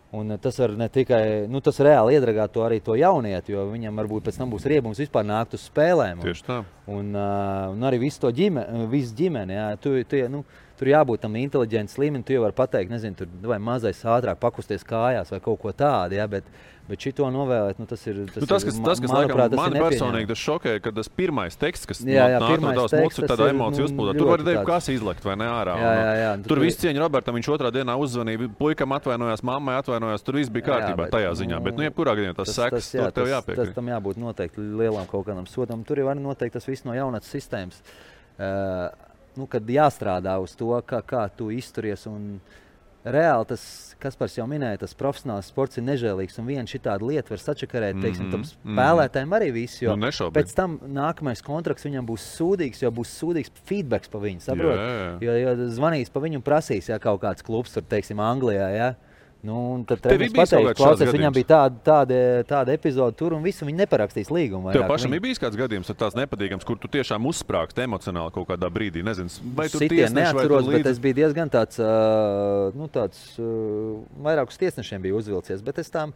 Un tas var ne tikai, tas reāli iedragāt arī to jaunieti, jo viņam varbūt pēc tam būs riebums vispār nākt uz spēlēm.
Tieši tā.
Un arī visu ģimeni, jā, tur jābūt tam inteliģents līmenim, tu jau vari pateikt, nezinu, tur vai mazais ātrāk pakusties kājās vai kaut ko tādu, jā, bet šito novēlēt, tas ir,
tas, kas
manuprāt,
laikam, mani personīgi tas šokēja, ka tas pirmais teksts, kas nāk no tavas mutes, ir tāda emociju uzplūdā. Tur var teikt, kas izlekt vai ne ārā.
Jā,
tur viss cieņa Robertam, viņš otrā dienā uzzvanīja, puikam atvainojās, mammai atvainojās, tur viss bija kārtībā tajā ziņā, bet jebkurā gadījumā tas seks, tur tev jāpiekrīt.
Tas tam jābūt noteikti lielam kaut kādam sodam. Tur jau arī noteikti tas viss no jaunatnes sistēmas, kad jāstrādā uz to, kā tu izturies. Un reāli tas, Kaspars jau minēja, tas profesionāls sports ir nežēlīgs, un viena šitāda lieta var sačakarēt, tam spēlētājiem arī visu, jo pēc tam nākamais kontrakts viņam būs sūdīgs, jo būs sūdīgs feedbacks pa viņu, saprot? Jo zvanīs pa viņu un prasīs, ja kaut kāds klubs tur, teiksim, Anglijā, ja? Tad es pateicu, klausies, viņam bija tāda epizode tur un visu, viņi neparakstīs līgumu.
Tev pašam ir bijis kāds gadījums tāds nepatīkams, kur tu tiešām uzsprāgst emocionāli kaut kādā brīdī, nezinu, vai tu tiesneši
neatceros, bet es biju diezgan tāds, vairāk uz tiesnešiem biju uzvilcies, bet es tām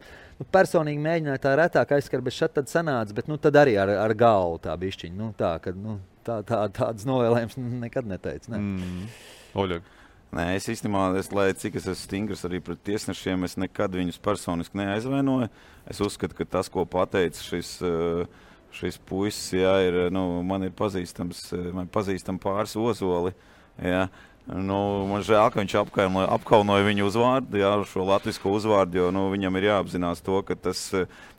personīgi mēģināju tā retāk aizskar, bet šad tad sanāca, bet tad arī ar galvu tā bišķiņa, tādas novēlējums nekad neteicu, ne.
Oļeg.
Nē, es īstenībā, lai cik es esmu stingrs arī pret tiesnešiem, es nekad viņus personiski neaizvainoju. Es uzskatu, ka tas, ko pateica šis puisis, jā, ir, man ir pazīstam pāris Ozoli, jā. Man žēl, ka viņš apkaunoja viņu uzvārdu, jā, šo latvisko uzvārdu, jo viņam ir jāapzinās to, ka tas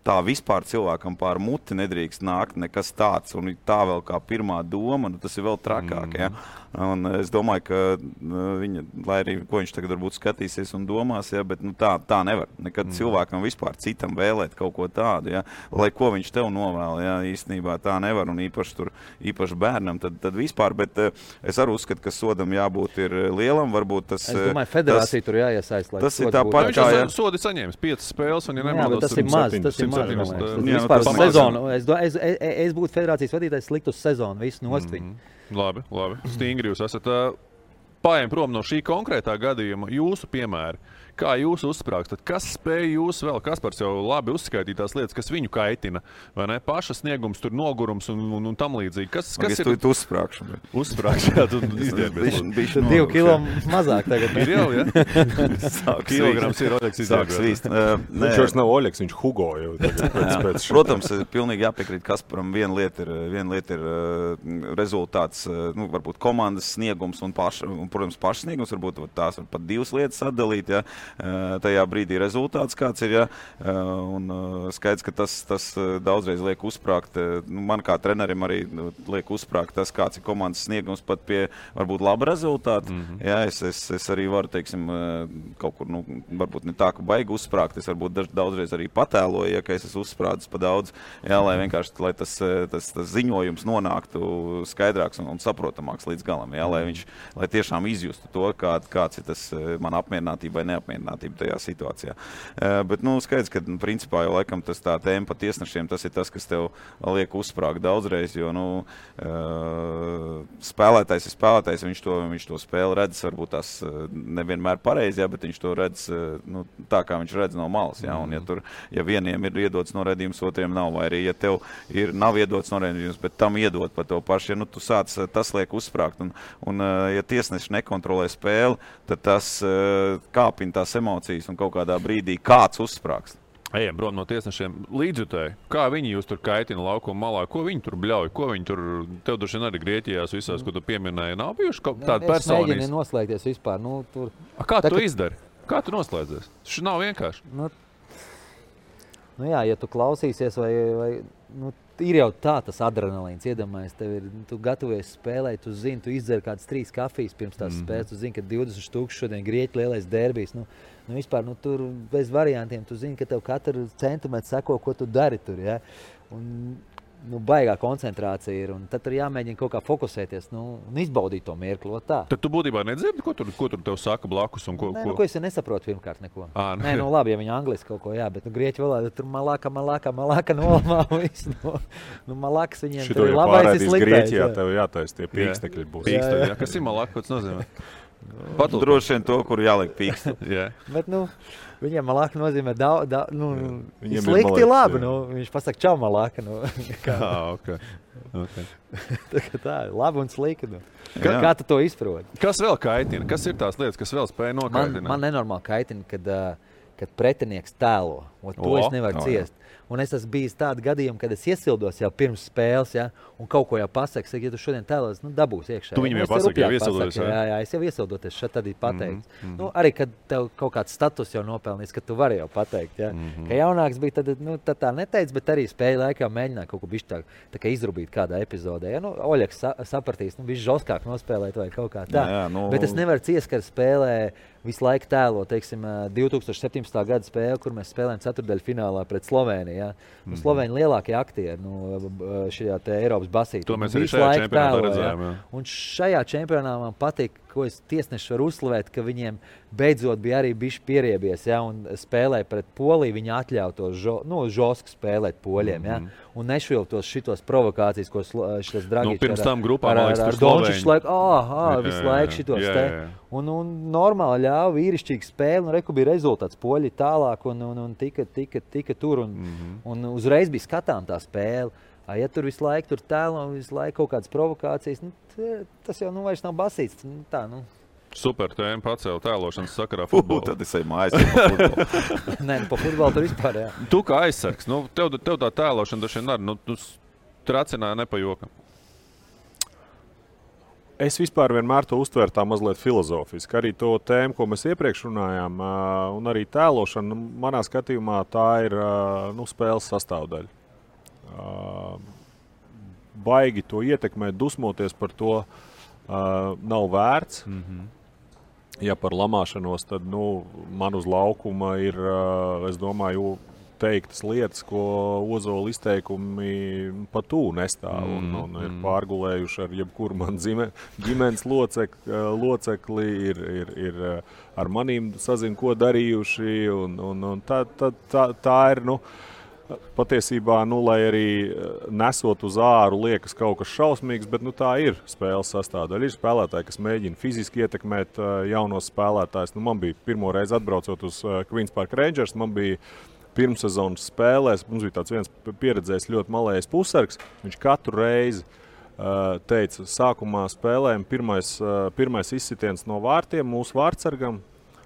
tā vispār cilvēkam pār muti nedrīkst nākt nekas tāds, un tā vēl kā pirmā doma, tas ir vēl trakāk, jā. Un es domāju, ka viņa, lai arī ko viņš tagad varbūt skatīsies un domās, jā, bet tā nevar. Nekad cilvēkam vispār citam vēlēt kaut ko tādu, jā. Lai ko viņš tev novēl, jā, īstenībā tā nevar, un īpaši bērnam, tad vispār, bet es arī uzskatu, ka sodam jābūt ir lielam, varbūt tas...
Es domāju, federācija tur jāiesaist, lai
tas ir tāpat kā...
Viņš sodi saņēmis 5 spēles, un ja nemaldos...
Tas ir maz, Vispār sezonu. Es būtu federācijas vadītājs, likt uz sezonu visu nost viņu.
Labi. Stingri jūs esat. Paiem prom no šī konkrētā gadījuma jūsu piemēri. Kā jūs uzsprāgstat? Kas spēj jūs vēl? Kaspars jau labi uzskaitīja tās lietas, kas viņu kaitina. Vai ne? Paša sniegums, tur nogurums un tam līdzīgi. Kas ir?
Tu uzsprāgšu.
Uzsprāgšu, jā, tu izdienbies.
2 kilo mazāk tagad.
Ir jau, jā? Kilograms ir Oļeks izdienbies.
Viņš vairs nav Oļeks, viņš Hugo jau.
Protams, pilnīgi jāpiekrīt Kasparam. Viena lieta ir rezultāts, varbūt komandas sniegums un protams, paša sniegums. Varbūt tās var pat 2 lietas atdalīt, ja. Tajā brīdī rezultāts kāds ir, ja, un skaidrs, ka tas daudzreiz liek uzsprāgt, man kā trenerim arī liek uzsprāgt tas, kāds ir komandas sniegums pat pie varbūt laba rezultāta. Ja, es arī varu, teiksim, kaut kur, varbūt ne tā, ka baigi uzsprāgt, es varbūt daudzreiz arī patēloju, ja, ka es esmu uzsprādzis pa daudz, ja, lai vienkārši, lai tas ziņojums nonāktu skaidrāks un saprotamāks līdz galam, ja, lai tiešām izjustu to, kāds ir tas man apmierinātība vai neapmierinātība tajā situācijā. Bet, skaidrs, ka, principā, jau laikam tas tā tēma pa tiesnešiem, tas ir tas, kas tev liek uzsprāgt daudzreiz, jo, spēlētājs ir spēlētājs, viņš to spēli redz, varbūt tās nevienmēr pareizi, ja, bet viņš to redz, tā, kā viņš redz no malas, ja, un ja vieniem ir iedots noraidījums, otriem nav, vai arī, ja tev nav iedots noraidījums, bet tam iedot pa tev paši, ja, tu sāc, tas liek uzsprāgt, un ja tiesneši nekontrolē spēli, tad tas kāpina tās emocijas un kaut kādā brīdī kāds uzsprāgst.
Ejam prom no tiesnešiem līdzjutēji. Kā viņi jūs tur kaitina laukuma malā? Ko viņi tur bļauj? Ko viņi tur, tev droši vien arī Grieķijās visās, ko tu pieminēji, nav bijuši tāda personīs?
Es mēģinu noslēgties vispār.
Kā tu izdari? Kā tu noslēdzies? Tas nav vienkārši.
Jā, ja tu klausīsies vai ir jau tā tas adrenalīns, iedomājies, tu gatavojies spēlēt, tu zini, tu izdzer kādas 3 kafijas pirms tās spēles, tu zini, ka 20,000 šodien Grieķu lielais derbijs, vispār, tur bez variantiem, tu zini, ka tev katru centimetru seko, ko tu dari tur, ja, un baigā koncentrācija ir, un tad tur jāmēģina kaut kā fokusēties, un izbaudīt to mirkli, tā.
Tad tu būtībā nedzirdi, ko tur tev saka blakus un ko?
Ko es nesaprotu pirmkārt neko. Labi, ja viņi angliski kaut ko, jā, bet grieķu valodā tur malaka nolamā visu. Malakas viņiem tur ir labais ir sliktais.
Grieķijā tev jātais tie pīkstekļi būs.
Pīkstekļi, jā. Kas ir malaka, ko tas nozīmē?
Droši vien to, kur jāliek pīkstu.
Bet, viņiem malaka nozīmē slikti labi. Viņš pasaka čau malaka.
Okay.
Tā ir labi un slikti. Kā tu to izproti?
Kas vēl kaitina? Kas ir tās lietas, kas vēl spēj nokaitināt?
Man nenormāli kaitina, kad pretinieks tēlo. To es nevaru ciest. Un es esmu bijis tādu gadījumu, kad es iesildos jau pirms spēles, ja, un kaut ko jau pasaku, ja tu šodien tēlos, dabūs iekšā.
Tu viņam jau pasaki, jau iesildoties.
Jā, es jau iesildoties, šeit tad ir pateikts. Arī, kad tev kaut kāds status jau nopelnīs, ka tu vari jau pateikt, ja. Ka jaunāks bija, tad tā neteic, bet arī spēja laikā mēģināt kaut ko bišķi tā kā izrubīt kādā epizodē. Ja, Oļeks sapratīs, bišķi žoskāk nospēlēt vai kaut kā tā. Bet es nevaru ciest, ka spēlē visu laiku tēlo, teiksim, 2017. gada spēle, kur mēs spēlējam ceturtdaļfinālā pret Slovēniju. Ja? Slovēņi lielākie aktieri šajā te Eiropas basītē.
To mēs arī šajā čempionātā redzējām.
Ja? Un šajā čempionātā man patīk, ko es tiesneši varu uzslavēt, ka viņiem beidzot bija arī bišķi pieriebies, ja? Un spēlēja pret Poliju, viņi atļauj to žosku spēlēt poļiem. Ja? Un nešviltos šitos provokācijas, ko šitas Dragičs
pirms tam grupā,
ar Dončiču laiku, visu laiku šitos te. Un normāli ļāva vīrišķīgi spēli, un reku bija rezultāts. Poļi tālāk un tika tur, un uzreiz bija skatām tā spēle. Ja tur visu laiku tēlo, visu laiku kaut kādas provokācijas, tas jau vairs nav basīts.
Super tēma pacēla tēlošanas sakarā futbolā.
Tad es eju mājās pa futbolu.
Nē, pa futbolu tur vispār, jā.
Tu kā aizsargs, tev tā tēlošana dažiem arī, tu tracināji nepajokam.
Es vispār vienmēr to uztveru tā mazliet filozofiski. Arī to tēmu, ko mēs iepriekš runājām, un arī tēlošana, manā skatījumā tā ir spēles sastāvdaļa. Baigi to ietekmēt, dusmoties par to nav vērts. Ja par lamāšanos, tad man uz laukuma ir, es domāju, teiktas lietas, ko Ozola izteikumi pat tū nestāv un ir pārgulējuši ar jebkuru man ģimenes locekli, ir ar manīm sazin, ko darījuši, un tā ir, patiesībā, lai arī nesot uz āru liekas kaut kas šausmīgs, bet tā ir spēles sastāvdaļa. Ir spēlētāji, kas mēģina fiziski ietekmēt jaunos spēlētājus. Man bija pirmo reizi atbraucot uz Queens Park Rangers, man bija pirmssezonas spēlēs, mums bija tāds viens pieredzējis ļoti malējais pusargs, viņš katru reizi teica, sākumā spēlēm pirmais izsitiens no vārtiem mūsu vārtsargam,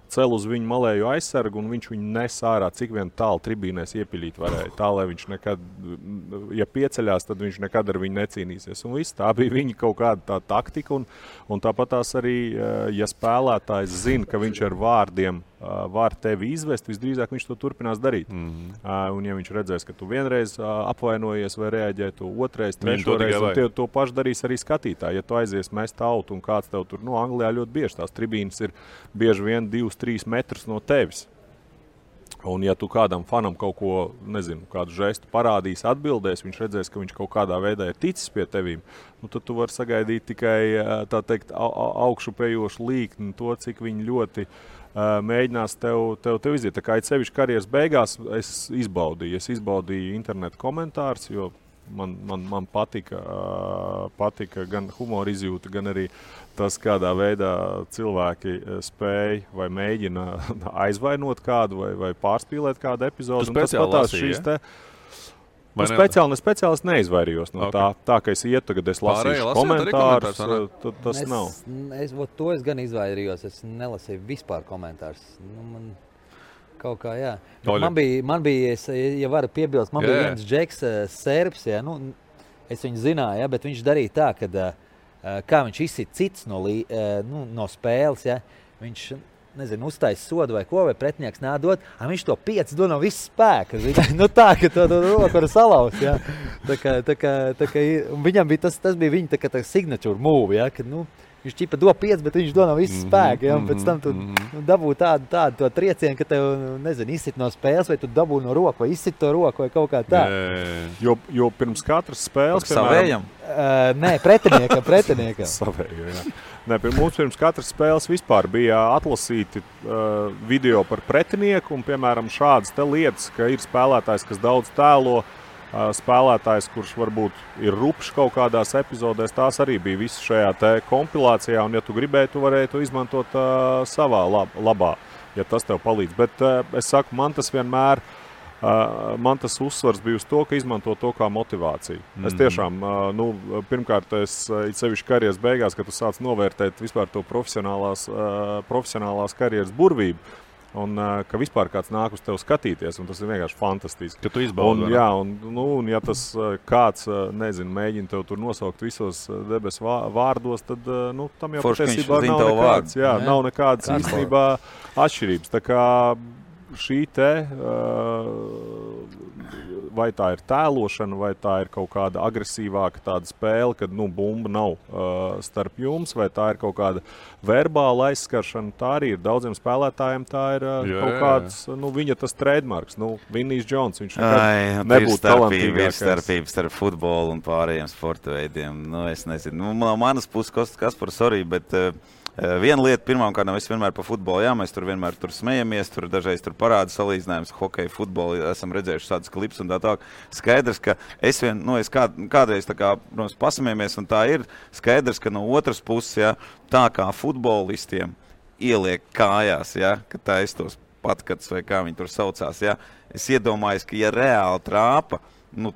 cel uz viņu malēju aizsargu, un viņš viņu nes ārā, cik vien tālu tribīnēs iepiļīt varēja. Tā, lai viņš nekad, ja pieceļās, tad viņš nekad ar viņu necīnīsies. Un viss, tā bija viņa kaut kāda tā taktika, un tāpat tās arī, ja spēlētājs zina, ka viņš ar vārdiem var tevi izvest, visdrīzāk viņš to turpinās darīt. Un ja viņš redzēs, ka tu vienreiz apvainojies vai reaģē, tu otrais, trešoreiz, un to pašu darīs arī skatītāji. Ja tu aizies mest autu un kāds tev tur, Anglijā ļoti bieži tās tribīnes ir bieži vien 2-3 metrus no tevis. Un ja tu kādam fanam kaut ko, kādu žestu parādīs, atbildēs, viņš redzēs, ka viņš kaut kādā veidā ir ticis pie tevīm, tad tu vari sagaidīt tikai, tā teikt, augšupejošu līkni, to, cik viņi ļoti mēģinās tev iziet. Tā kā sevišķi karjeras beigās es izbaudīju internetu komentārus, jo man patika gan humora izjūta, gan arī tas, kādā veidā cilvēki spēj vai mēģina aizvainot kādu vai pārspīlēt kādu epizodu.
Tu speciāli lasīji,
Speciāli es neizvairījos no tā, ka es ietu, tagad es lasīšu komentārus, tas nav.
To es gan izvairījos, es nelasīju vispār komentārus. Man kaut kā, jā. Man bija, ja varu piebilst, bija viens džeks, serbs, es viņu zināju, bet viņš darīja tā, kad, kā viņš izsit cits no spēles, viņš, uztais sodu vai ko, vai pretinieks nādot, viņš to 5 dod no viss spēka. Tā, ka to roku var salaust, Tā kā viņam bija tas bija viņa tā kā tā signature move, kad, viņš ķipa do 5, bet viņš do no viss spēka, un pēc tam tu dabū tādu to triecienu, ka tev, izsit no spēles, vai tu dabū no roku, vai izsit to roku, vai kaut kā tā.
Jo pirms katras spēles,
savējam?
Nē, pretiniekam.
Savējam, jā. Mums pirms katras spēles vispār bija atlasīti video par pretinieku, un, piemēram, šādas te lietas, ka ir spēlētājs, kas daudz tēlo, spēlētājs, kurš varbūt ir rupšs kaut kādās epizodēs, tās arī bija visas šajā te kompilācijā, un ja tu gribēji, tu varēji to izmantot savā labā, ja tas tev palīdz. Bet es saku, man tas uzsvars bija uz to, ka izmanto to kā motivāciju. Es tiešām, pirmkārt, sevišķi karjeras beigās, kad tu sāc novērtēt vispār to profesionālās karjeras burvību, un ka vispār kāds nāk uz tevi skatīties, un tas ir vienkārši fantastiski.
Ka tu izbaudi,
un ja tas kāds, mēģina tev tur nosaukt visos debesu vārdos, tad, tam jau patiesībā nav nekādas īstenībā atšķirības. Tā kā šī te, vai tā ir tēlošana, vai tā ir kaut kāda agresīvāka tāda spēle, kad bumba nav starp jums, vai tā ir kaut kāda verbāla aizskaršana, tā arī ir daudziem spēlētājiem, tā ir kaut kāds, viņa tas trademarks, Vinnijs Džons, viņš nebūtu talantīgākais.
Starpības starp futbolu un pārējiem sporta veidiem, es nezinu. No manas puses, Kaspar, sorry, bet viena lieta, pirmām kārtām, es vienmēr pa futbolu, mēs tur vienmēr smejamies, tur dažreiz tur parāda salīdzinājums, hokeju, futbolu, esam redzējuši tādas klips un tā. Skaidrs, ka es kādreiz tā kā, protams, pasmējamies, un tā ir skaidrs, ka no otras puses, tā kā futbolistiem ieliek kājās, ka taistos patkats vai kā viņi tur saucās, es iedomājos, ka ja reāli trāpa,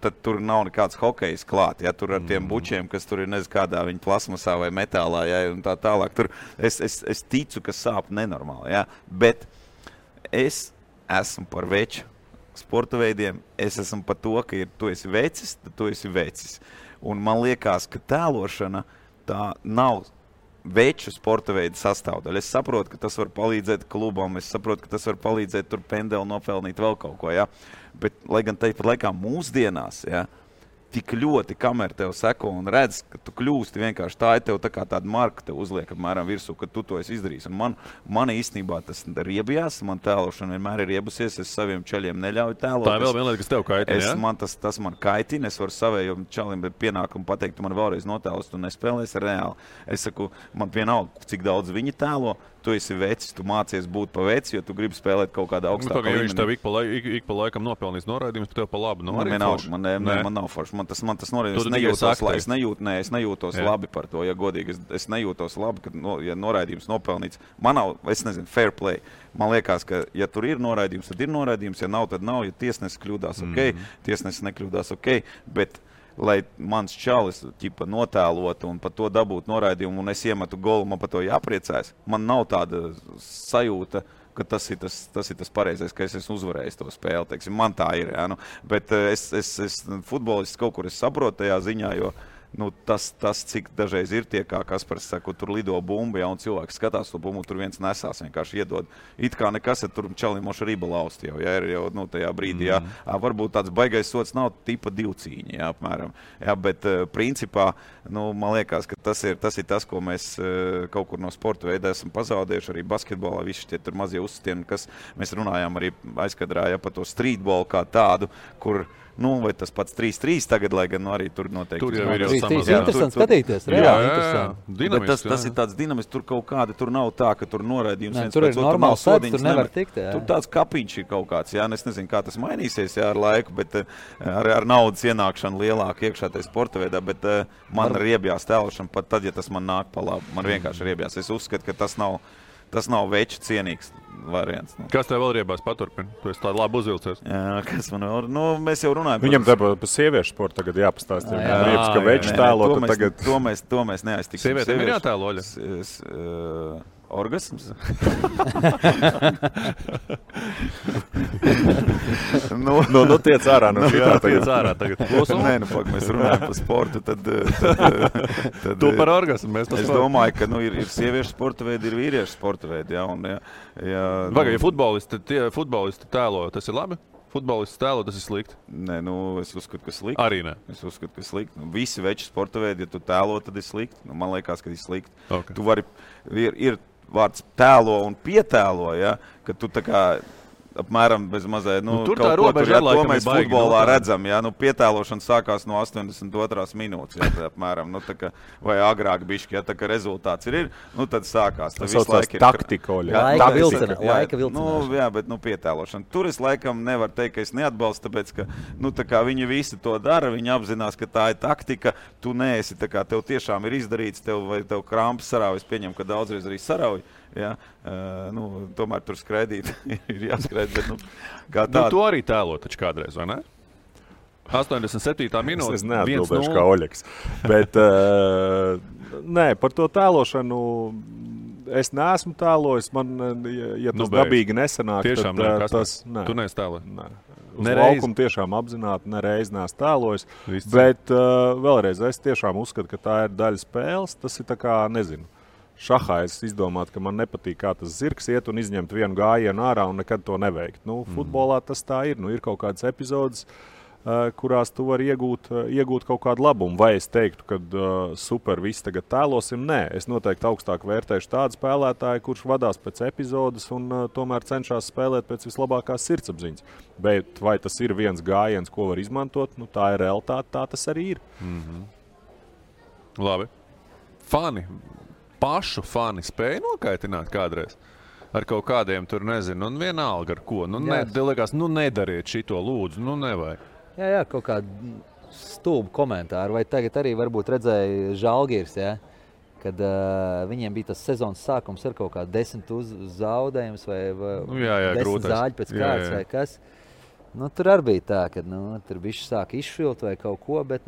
tad tur nav nekāds hokejs klāt, tur ar tiem bučiem, kas tur ir kādā viņa plasmasā vai metālā, un tā tālāk. Tur es ticu, ka sāp nenormāli, bet es esmu par veču sporta veidiem, es esmu par to, ka tu esi vecis, tad tu esi vecis. Un man liekas, ka tēlošana tā nav veču sporta veidu sastāvdaļa. Es saprotu, ka tas var palīdzēt klubam, es saprotu, ka tas var palīdzēt tur pendeli nopelnīt vēl kaut ko, bet, lai gan tāpat laikā mūsdienās, tik ļoti, kamēr tev seko un redz, ka tu kļūsti vienkārši tā, tev tā kā tāda marka tev uzliek apmēram virsū, ka tu to esi izdarījis. Un man īstenībā tas riebjās, man tēlošana vienmēr ir riebusies, es saviem čaļiem neļauju tēlot.
Tā ir vēl viena lieta, kas tev kaitina,
Tas man kaitina, es varu savējiem čaļiem pienākumu pateikt, tu man vēlreiz notēlos, tu nespēlēsi reāli. Es saku, man vienalga, cik daudz viņi tēlo, tu esi vecis, tu mācies būt pa veci, jo tu gribi spēlēt kaut kādā augstākā līmenī.
Viņš tev ik pa laikam nopelnīs noraidījumus, tu tev pa labu
Man nav forši. Man tas noraidījums, es nejūtos labi par to, ja godīgi. Es nejūtos labi, ja noraidījums nopelnīts. Man nav, es nezinu, fair play. Man liekas, ka ja tur ir noraidījums, tad ir noraidījums, ja nav, tad nav. Ja tiesnesis kļūdās, tiesnesis nekļūdās, bet lai mans čalis notēlotu un par to dabūtu noraidījumu un es iemetu golu, man par to jāpriecājas. Man nav tāda sajūta, ka tas ir tas pareizais, ka es esmu uzvarējis to spēli. Teiksim, man tā ir, jā, bet es futbolists kaut kur es saprotu tajā ziņā, jo tas, cik dažreiz ir tie, kā Kaspars saka, tur lido bumba, ja, un cilvēks skatās to bumbu, tur viens nesās, vienkārši iedod. It kā nekas, ja tur čalim moša riba lausti jau, ja, ir jau tajā brīdī, jā. Varbūt tāds baigais sots nav tipa 2 cīņa, jā, apmēram. Jā, bet principā, man liekas, ka tas ir tas, ko mēs kaut kur no sporta veida esam pazaudējuši, arī basketbolā, visi tie tur mazie uzsitieni, kas mēs runājām arī aizkadrā, ja, par to streetbolu kā tādu, kur vai tas pats 3-3 tagad, lai gan arī tur noteikti.
Tur jau ir interesanti skatīties.
Bet tas ir tāds dinamisks, tur kaut kāda, tur nav tā, ka tur noraidījums viens
tur
pēc
ir normāls sēdz, tur nevar tikt.
Tur tāds kapiņš ir kaut kāds, jā, es nezinu, kā tas mainīsies, jā, ar laiku, bet ar naudas ienākšanu lielāk iekšā tajā sporta veidā, bet man riebjās tēlošana pat tad, ja tas man nāk pa labu. Man vienkārši riebjās. Es uzskatu, ka tas nav veču cienīgs variants.
Kas tev vēl riebās paturpina? Tu esi tādu labi uzvilcies.
Jā, kas man vēl? Mēs jau runājam.
Viņam tā pa sieviešu sportu tagad jāpastāst. Riebs, ka veču tēlo, tad tagad...
To mēs neaiztiksim.
Sievietēm ir jātēlo, Oļa?
Orgasms?
Tiec ārā no šitā tagad.
Tiec ārā tagad.
Nē, mēs runājam par sportu, tad
tu par orgasmu, mēs par sportu.
Es domāju, ka ir sieviešu sporta veidi, ir vīriešu sporta veidi, jā, un
Vai, ja futbolisti tēlo, tas ir labi? Futbolists tēlo, tas ir slikti?
Nē, es uzskatu, ka slikti.
Arī ne?
Es uzskatu, ka slikti. Visi veči sporta veidi, ja tu tēlo, tad ir slikti. Man liekas, ka ir slikti.
Okay.
Tu vari, ir vārds tēlo un pietēlo, ja, ka tu tā kā apmēram bez mazai,
tur tā robeža ir,
to mēs futbolā redzam, ja, pietēlošana sākās no 82. minūtes, ja, apmēram, tā kā, vai agrāk bišķi, ja, tā kā rezultāts ir, tad sākās.
Tas saucās taktika,
Laika vilcināšana.
Jā, bet, pietēlošana. Tur es laikam nevaru teikt, ka es neatbalstu, tāpēc, ka, tā kā viņi visi to dara, viņi apzinās, ka tā ir taktika, tu neesi, tā kā tev tiešām ir izdarīts, vai tev krampas sarauj, es pieņemu, ka daudzreiz arī sarauj. Ja, tomēr tur skraidīt ir jāskraid, bet kā tāda.
Tu arī tēlo taču kādreiz, vai ne? 87. minūte.
Es neatbildēšu kā Oļeks. Bet, nē, par to tēlošanu es neesmu tēlojis. Man, ja tas dabīgi nesanāk,
tiešām
tad tas... Nē.
Tu neesi tēlojis?
Nē. Uz laukumu tiešām apzināti nereiz neesmu tēlojis. Bet vēlreiz, es tiešām uzskatu, ka tā ir daļa spēles. Tas ir tā kā, nezinu. Šahā es izdomātu, ka man nepatīk, kā tas zirgs iet un izņemt vienu gājienu ārā un nekad to neveikt. Futbolā tas tā ir. Ir kaut kādas epizodes, kurās tu vari iegūt kaut kādu labumu. Vai es teiktu, ka super, visi tagad tēlosim? Nē, es noteikti augstāk vērtēšu tādu spēlētāju, kurš vadās pēc epizodes un tomēr cenšas spēlēt pēc vislabākās sirdsapziņas. Bet vai tas ir viens gājiens, ko var izmantot? Tā ir realitāte, tā tas arī ir.
Labi. Pašu fani spēja nokaitināt kādreiz ar kaut kādiem tur, nezinu, un vienalga ar ko. Liekas, nedariet šito lūdzu, nevajag.
Jā, kaut kādu stulbu komentāru. Vai tagad arī varbūt redzēja Žalgiris, ja? Kad viņiem bija tas sezonas sākums ar kaut kādu 10 zaudējumus vai 10 zāļu pēc kārtas vai kas. Tur arī bija tā, ka tur bišķi sāk izšvilt vai kaut ko, bet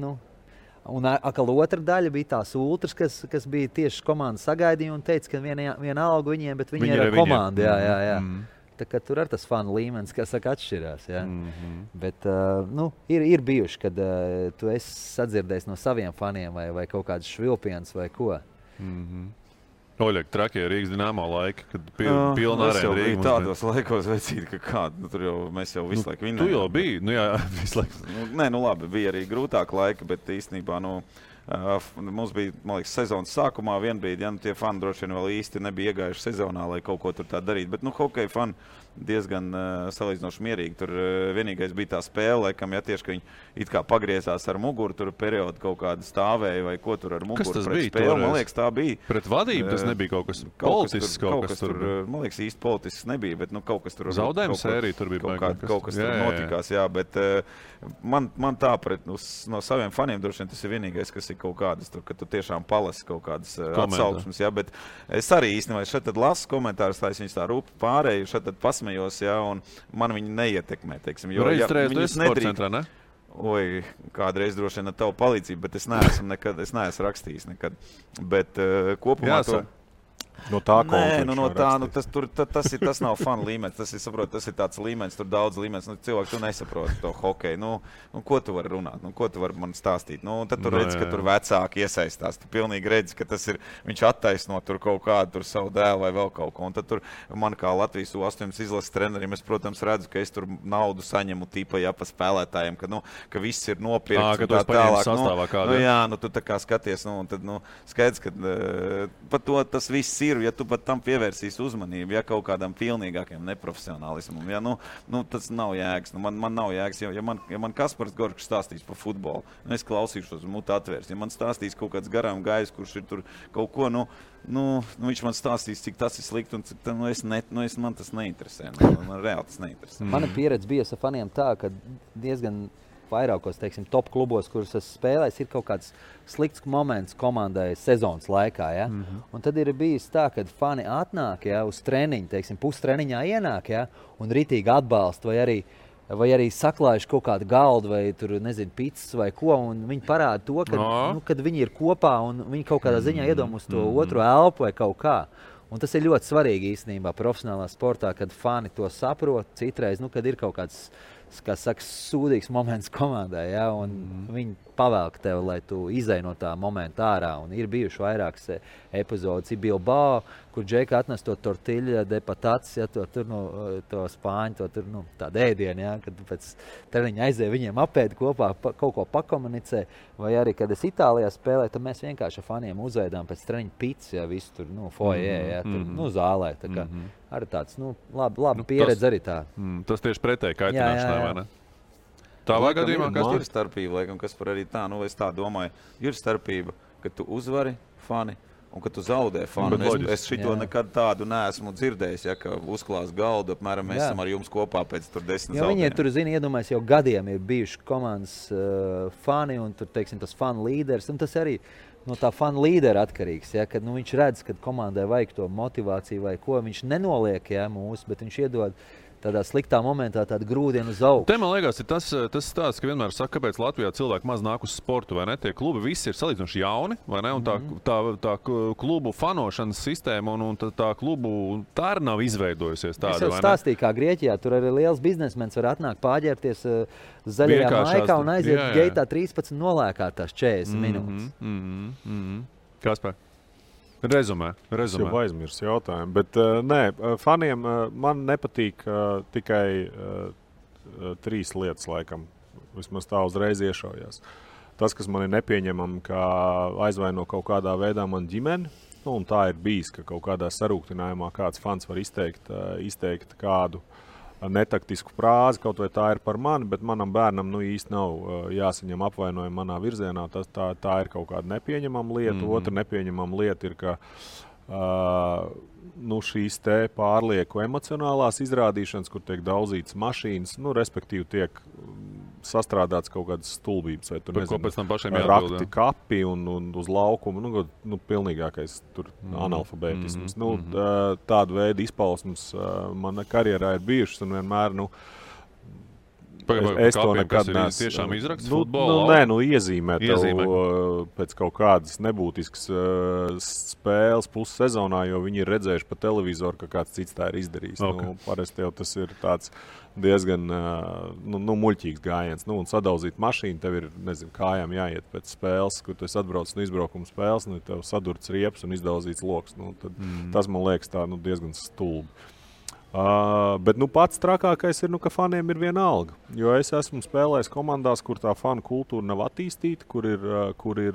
un atkal otra daļa bija tās ultras, kas bija tieši komandas sagaidījumi un teica, ka viena alga viņiem, bet viņi ir ar komandu. Jā. Tā kā tur ar tas fanu līmenis, kas saka, atšķirās. Jā. Bet ir bijuši, kad tu esi sadzirdējis no saviem faniem vai kaut kādas švilpienas vai ko.
Oļek, trakie Rīgas Dinamo laiki, kad pilna arēna Rīga.
Es jau tādos laikos vecīt, ka kādu, tur jau mēs jau visu laiku vinnējām.
Tu jau biji, jā, visu laiku.
Nē, labi, bija arī grūtāk laika, bet īstenībā, mums bija, man liekas, sezonas sākumā vienbrīd, ja tie fani droši vien vēl īsti nebija iegājuši sezonā, lai kaut ko tur tā darīt, bet, hokeja fani diezgan salīdzinoši mierīgi. Tur vienīgais bija tā spēle, laikam, tieši, ka viņi it kā pagriezās ar muguru, tur periodu kaut kāda stāvēja vai ko tur ar muguru.
Kas tas
pret
bija?
Spēli. Man liekas, tā bija.
Pret vadību tas nebija kaut kas politisks.
Kaut kas tur, man liekas, īsti politisks nebija, bet kaut kas tur...
Zaudējuma sērija tur bija.
Kaut kas tur notikās, jā, bet man tā no saviem faniem droši vien tas ir vienīgais, kas ir kaut kādas, tur, ka tu tiešām palasi kaut kādas atsauksmes, jā, bet es arī īstenībā šeit tad lasu komentārus, tā es viņus tā rūpi pārēju, šeit tad pasmejos, jā, un man viņi neietekmē, teiksim.
Reģistrējas tu esi sporta centrā, ne?
Oi, kādreiz droši vien ar tavu palīdzību, bet es neesmu rakstījis nekad. Bet kopumā to...
No tā
tas nav fanu līmenis. Tas ir tāds līmenis, tur daudz līmenis. Cilvēki, tu nesaproti to hokeju. Ko tu vari runāt? Ko tu vari man stāstīt? Tad tu redzi, ka tur vecāki iesaistās. Tu pilnīgi redzi, ka viņš attaisno tur kaut kādu tur savu dēlu vai vēl kaut ko. Un tad tur man kā Latvijas U18 izlases trenerim, es, protams, redzu, ka es tur naudu saņemu tipa pa spēlētājiem, ka viss ir nopirkts.
Ka tu esi paņēmis sastāvā kādā.
Tu tā kā skaties, un tad skaidrs, ka par to tas viss ir. Ja tu pat tam pievērsīs uzmanību, ja kaut kādam pilnīgākiem neprofesionālismam, ja, tas nav jēgas. Man nav jēgas. Ja man Kaspars Gorkšs stāstīs par futbolu, es klausīšos mutu atvērs. Ja man stāstīs kaut kāds garām gājs, kurš ir tur kaut ko, viņš man stāstīs, cik tas ir slikti, un man tas neinteresē. Man reāli tas neinteresē.
Mana pieredze bija ar faniem tā, ka diezgan vairākos, teiksim, top klubos, kurus es spēlēju, ir kaut kāds slikts moments komandai sezonas laikā. Ja? Un tad ir bijis tā, ka fani atnāk uz treniņu, teiksim, pustreniņā ienāk, ja? Un ritīgi atbalsta vai arī saklājuši kaut kādu galdu vai tur, nezinu, pizzas vai ko, un viņi parāda to, kad viņi ir kopā un viņi kaut kādā ziņā iedom uz to otru elpu vai kaut kā. Un tas ir ļoti svarīgi īstenībā profesionālā sportā, kad fani to saprot, citreiz, kad ir kaut kāds, kā saka, sūdīgs moments komandai, ja, un viņi pavelk tev, lai tu izej no tā momenta ārā. Un ir bijuši vairākas epizodes. Ir Bilbao, kur Džeka atnes to tortiļa de patatas, ja, to spāņu, tādu ēdienu, ja, kad pēc treniņa aizēja viņiem apēd kopā, kaut ko pakomunicē. Vai arī, kad es Itālijā spēlēju, tad mēs vienkārši ar faniem uzveidām pēc treniņa pizzas, ja, visu tur, foyer, ja, tur, zālē. Tā kā arī tāds, labi pieredze arī tā.
Tas tieši pretēji kaitināšanai, vai ne? Tādā gadījumā,
kas ir starpība, laikam, kas par arī tā, es tā domāju, ir starpība, ka tu uzvari fani un ka tu zaudē fani. Es šito nekad tādu neesmu dzirdējis, ja, ka uzklās galdu, apmēram mēs esam ar jums kopā pēc tur 10 zaudējiem.
Viņi tur, iedomājas, jau gadiem ir bijuši komandas fani un tur, teiksim, tas fanu līderis, un tas arī no tā fanu līdera atkarīgs, ja, kad viņš redz, ka komandai vajag to motivāciju vai ko, viņš nenoliek, ja, mūs, bet viņš iedod tādā sliktā momentā tādu grūdienu uz augšu.
Te, man liekas, ir tas stāsts, ka vienmēr saka, kāpēc Latvijā cilvēki maz nāk uz sportu, vai ne? Tie klubi visi ir salīdzinoši jauni, vai ne? Un tā klubu fanošanas sistēma un tā klubu tā arī nav izveidojusies tāda, vai ne?
Es jau stāstīju, kā Grieķijā, tur arī liels biznesmens var atnākt pāģērties zaļajā maikā un aiziet geitā 13 nolēkā tās 40 minūtes.
Kaspar? Rezumē.
Es jau aizmirsu jautājumu, bet faniem man nepatīk tikai 3 lietas, laikam. Vismaz tā uzreiz iešaujās. Tas, kas man ir nepieņemami, ka aizvaino kaut kādā veidā man ģimeni, un tā ir bijis, ka kaut kādā sarūktinājumā kāds fans var izteikt kādu netaktisku frāzi, kaut vai tā ir par mani, bet manam bērnam īsti nav jāsaņem apvainojumi manā virzienā. Tā ir kaut kāda nepieņemama lieta. Otra nepieņemama lieta ir, ka šīs te pārlieku emocionālās izrādīšanas, kur tiek daudzītas mašīnas, respektīvi tiek sastrādāts kaut kādas stulbības, vai tur, nezinu, rakti kapi un uz laukumu, pilnīgākais tur analfabētisms. Tādu veidu izpausmes mana karjerā ir bijušas un vienmēr, es to nekad neesmu.
Tiešām izraksts futbolā?
Iezīmē pēc kaut kādas nebūtiskas spēles pussezonā, jo viņi ir redzējuši pa televizoru, ka kāds cits tā ir izdarījis. Parasti jau tas ir tāds diezgan muļķīgs gājiens. Un sadaudzīt mašīnu, tev ir, kājām jāiet pēc spēles, kur tu esi atbraucis no izbraukuma spēles, tev sadurts riepas un izdauzīts loks. Tas, man liekas, tā diezgan stulbi. Bet pats trakākais ir, ka faniem ir viena alga. Jo es esmu spēlējis komandās, kur tā fanu kultūra nav attīstīta, kur ir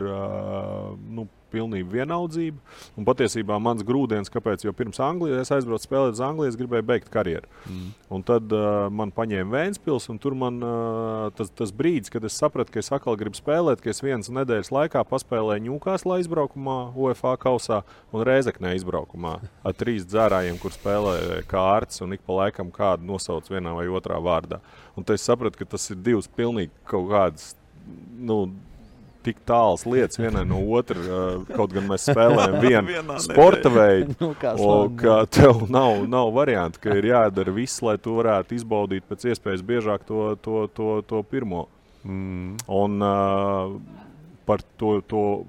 pilnība vienaldzība. Un patiesībā mans grūdienis, kāpēc, jo pirms Anglijas es aizbraucu spēlēt uz Angliju, es gribēju beigt karjeru. Un tad man paņēma Vēnspils, un tur man tas brīdis, kad es sapratu, ka es atkal gribu spēlēt, ka es vienas nedēļas laikā paspēlēju Ņūkāslā izbraukumā, UEFA kausā un Rēzeknē izbraukumā ar 3 dzērājiem, kur spēlēja kārtas un ik pa laikam kādu nosauc vienā vai otrā vārdā. Un tad es sapratu, ka tas ir 2 pilnīgi kaut kādas, tik tāls lietas vienai no otra, kaut gan mēs spēlējam vienu sporta veidu, ka tev nav variantu, ka ir jādara viss, lai tu varētu izbaudīt pēc iespējas biežāk to pirmo. Un par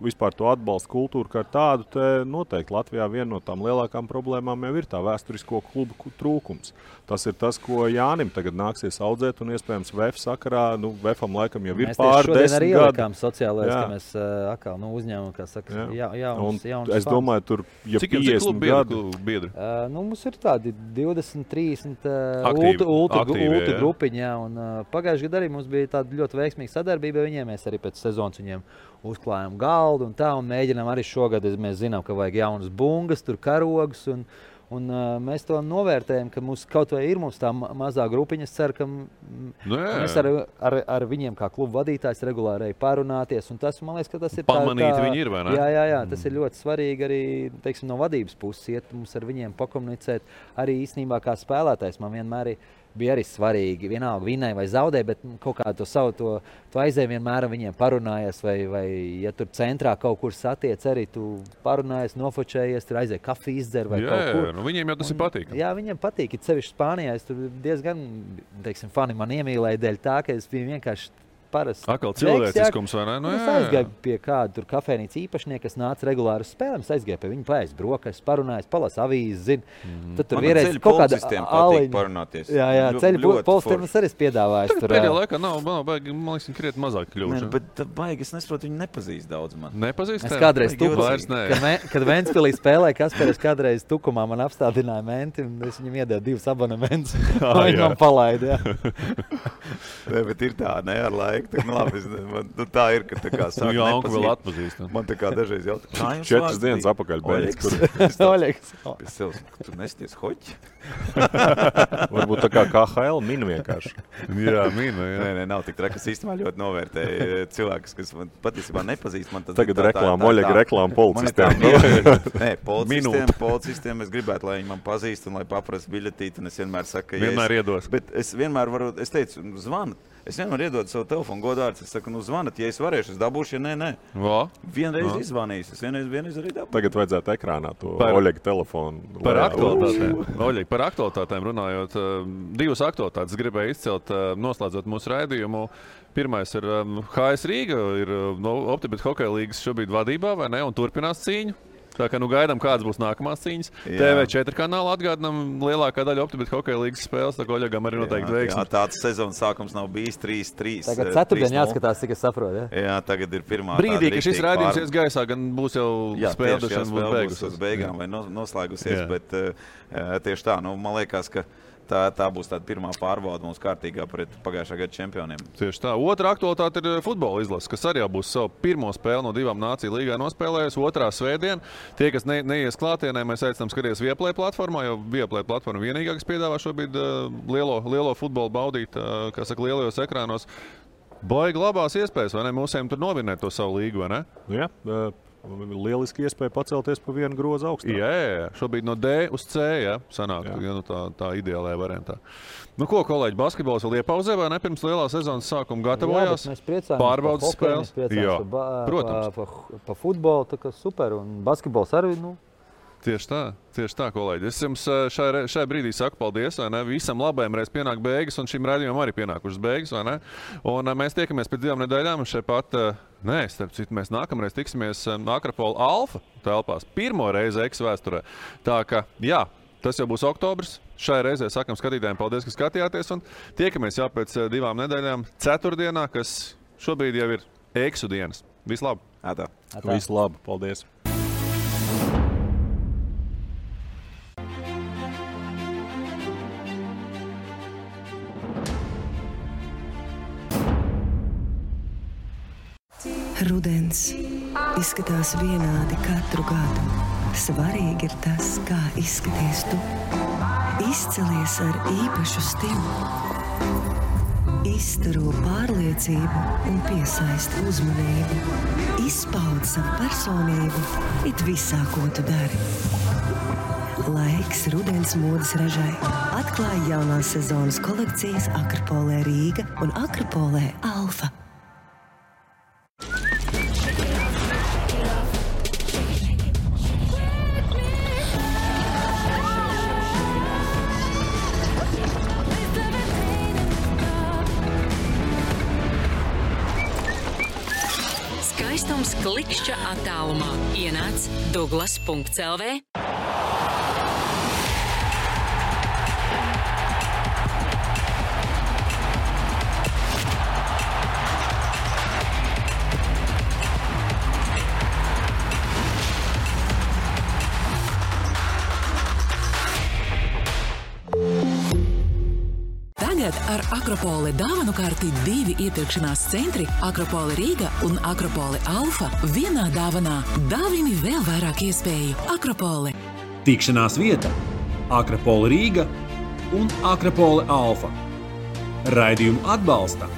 vispār to atbalstu kultūru kā tādu, te noteikti Latvijā viena no tām lielākām problēmām jau ir tā vēsturisko klubu trūkums. Tas ir tas, ko Jānim tagad nāksies audzēt, un iespējams VF sakarā, VFam laikam jau ir pār 10 gadu.
Mēs arī ielikām sociālais, ka mēs atkal uzņēmām, kā saka, jauns
es domāju, tur, ja 50 gadu
biedri? Mums ir tādi 20, 30 ultra grupiņi, un pagājuši gadu arī mums bija tāda ļoti veiksmīga sadarbība viņiem, mēs arī pēc sezonas viņiem uzklājām galdu un tā, un mēģinām arī šogad, mēs zinām, ka vajag jaunas bungas, tur karogus, un mēs to novērtējam, ka mums kaut vai ir tā mazā grupiņa. Es ceru, ka mēs ar viņiem kā klubu vadītājs regulāri parunāties, un tas, man liekas, ka tas ir
pamanīt viņi ir, vai ne?
Jā, tas ir ļoti svarīgi arī, teiksim, no vadības puses iet mums ar viņiem pakomunicēt. Arī īstenībā kā spēlētājs man vienmēr bija arī svarīgi, vienalga vinnēja vai zaudēja, bet kaut kā to savu to aizēju vienmēr viņiem parunājies, vai ja tur centrā kaut kur satiec arī, tu parunājies, nofočējies, tur aizēja kafiju izdzer vai kaut kur.
Nu viņiem jau tas ir patīkami.
Jā, viņiem patīk, it sevišķi Spānijā, es tur diezgan, teiksim, fani man iemīlēja dēļ tā, ka es biju vienkārši parasti.
Atkal cilvēciskums, vai ne?
Es aizgāju pie kāda tur kafejnīca īpašnieka, kas nāca regulāri uz spēlēm. Es aizgāju pie viņa paēst brokas, parunājos, palas avīzi, Tad tur vienreiz kaut kāda
patīk parunāties.
Jā, ceļu policistiem es arī piedāvāju.
Tur pēdējā laikā nav baigi, man liekas, krietni mazāk kļuvuši.
Bet baigi, es nesaprotu, viņi nepazīst daudz man.
Nepazīst?
Es kādreiz kad Ventspilī spēlēju, Kasparis kādreiz Tukumā man apstādināja menti, un es viņam iedevu 2 abonementus. Viņi man palaida,
bet ir tā, ne, ar laiku. Labi, tā ir, ka tā kā sāk
nepazīt. Vēl atpazīst.
Man tā kā dažreiz jautā.
4 dienas apakaļ beidz.
Oļegs.
Es sev, tu nesties hoķi?
Varbūt tā kā KHL min vienkārši.
Jā, min.
Nē, nav tik traki. Es īstenībā ļoti novērtēju cilvēkus, kas man patiesībā nepazīst. Man
tagad Oļega reklāma policistiem.
Nē, policistiem es gribētu, lai viņi man pazīst un lai paprastu biļetīti. Un es vienmēr saku, ka
vienmēr iedos.
Bet es vienmēr varu, es teicu, zvanat. Es vienmēr iedodu savu telefonu godārds. Es saku, zvanat, ja es varēšu, es dabūšu, ja nē. Vienreiz izvanīju, es vienreiz arī dabūšu.
Tagad vajadzētu ekrānā to Oļega telefonu.
Par aktualitātēm. Oļeg, par aktualitātēm runājot, 2 aktualitātes gribēju izcelt, noslēdzot mūsu raidījumu. Pirmais ir HS Rīga, ir Optibet hokeja līgas šobrīd vadībā, vai ne, un turpinās cīņu. Tā kā gaidām, kādas būs nākamās cīņas. TV4 kanāla atgādinām lielākā daļa Optibet hokeja līgas spēles, tā kā Oļegam arī noteikti veiksmi.
Jā, tāds sezonas sākums nav bijis 3-3.
Tagad ceturtdien jāskatās, cik es saprotu.
Jā, tagad ir pirmā
brīdī, ka šis raidījums ies gaisā, gan būs jau spēlēšana būs beigusies.
Uz beigām vai noslēgusies, bet tieši tā, man liekas, ka tā būs tāda pirmā pārbauda mums kārtīgā pret pagājušā gada čempioniem.
Tieši tā. Otra aktualitāte ir futbola izlase, kas arī būs savu pirmo spēli no 2 nāciju līgā nospēlējusi. Otrā svētdien. Tie, kas neies klātienē, mēs aicinām skatīties Viaplay platformā, jo Viaplay platforma vienīgā, kas piedāvā šobrīd lielo futbolu baudīt, kā saka, lielajos ekrānos. Baigi labās iespējas, vai ne? Mūsiem tur novinēt to savu līgu, vai ne?
Jā. Lieliski iespēja pacelties pa vienu grozu augstāk.
Jā, šobrīd no D uz C, sanāk, tā ideālajā variantā. Ko, kolēģi, basketbols vēl iepauzē, vai ne? Pirms lielā sezonas sākuma gatavojās?
Jā, mēs priecājamies
pārbaudas spēles.
Jā, protams. Pa futbolu, tā kā super, un basketbols arī,
Tieši tā, kolēģi. Es jums šai brīdī saku paldies, vai ne? Visam labajam reiz pienāk beigas, un šim raidījumam arī pienākušas beigas, vai ne? Un mēs tiekamies pēc 2 nedēļām, un šeit pat, starp citu, mēs nākamreiz tiksimies Akropola Alfa telpās. Pirmo reizi X vēsturē. Tā ka, tas jau būs oktobrs. Šai reizē sakam skatītājiem paldies, ka skatījāties, un tiekamies jau pēc 2 nedēļām ceturtdienā, kas šobrīd jau ir Eksu dienas. Vislabāk!
Vislabāk, paldies!
Rudens, Izskatās vienādi katru gadu. Svarīgi ir tas, kā izskaties tu. Izcelies ar īpašu stilu. Izstaro pārliecību un piesaista uzmanību. Izpaud savu personību it visā, ko tu dari. Laiks rudens modes ražai. Atklāj jaunās sezonas kolekcijas Akropolē Rīga un Akropolē Alfa.
Skaistums klikšķa attālumā. Ienāc Douglas.lv. Tagad ar Akropole dāvanu karti 2 iepirkšanās centri Akropole Rīga un Akropole Alfa vienā dāvanā. Dāvini vēl vairāk iespēju. Akropole.
Tikšanās vieta Akropole Rīga un Akropole Alfa. Raidījumu atbalsta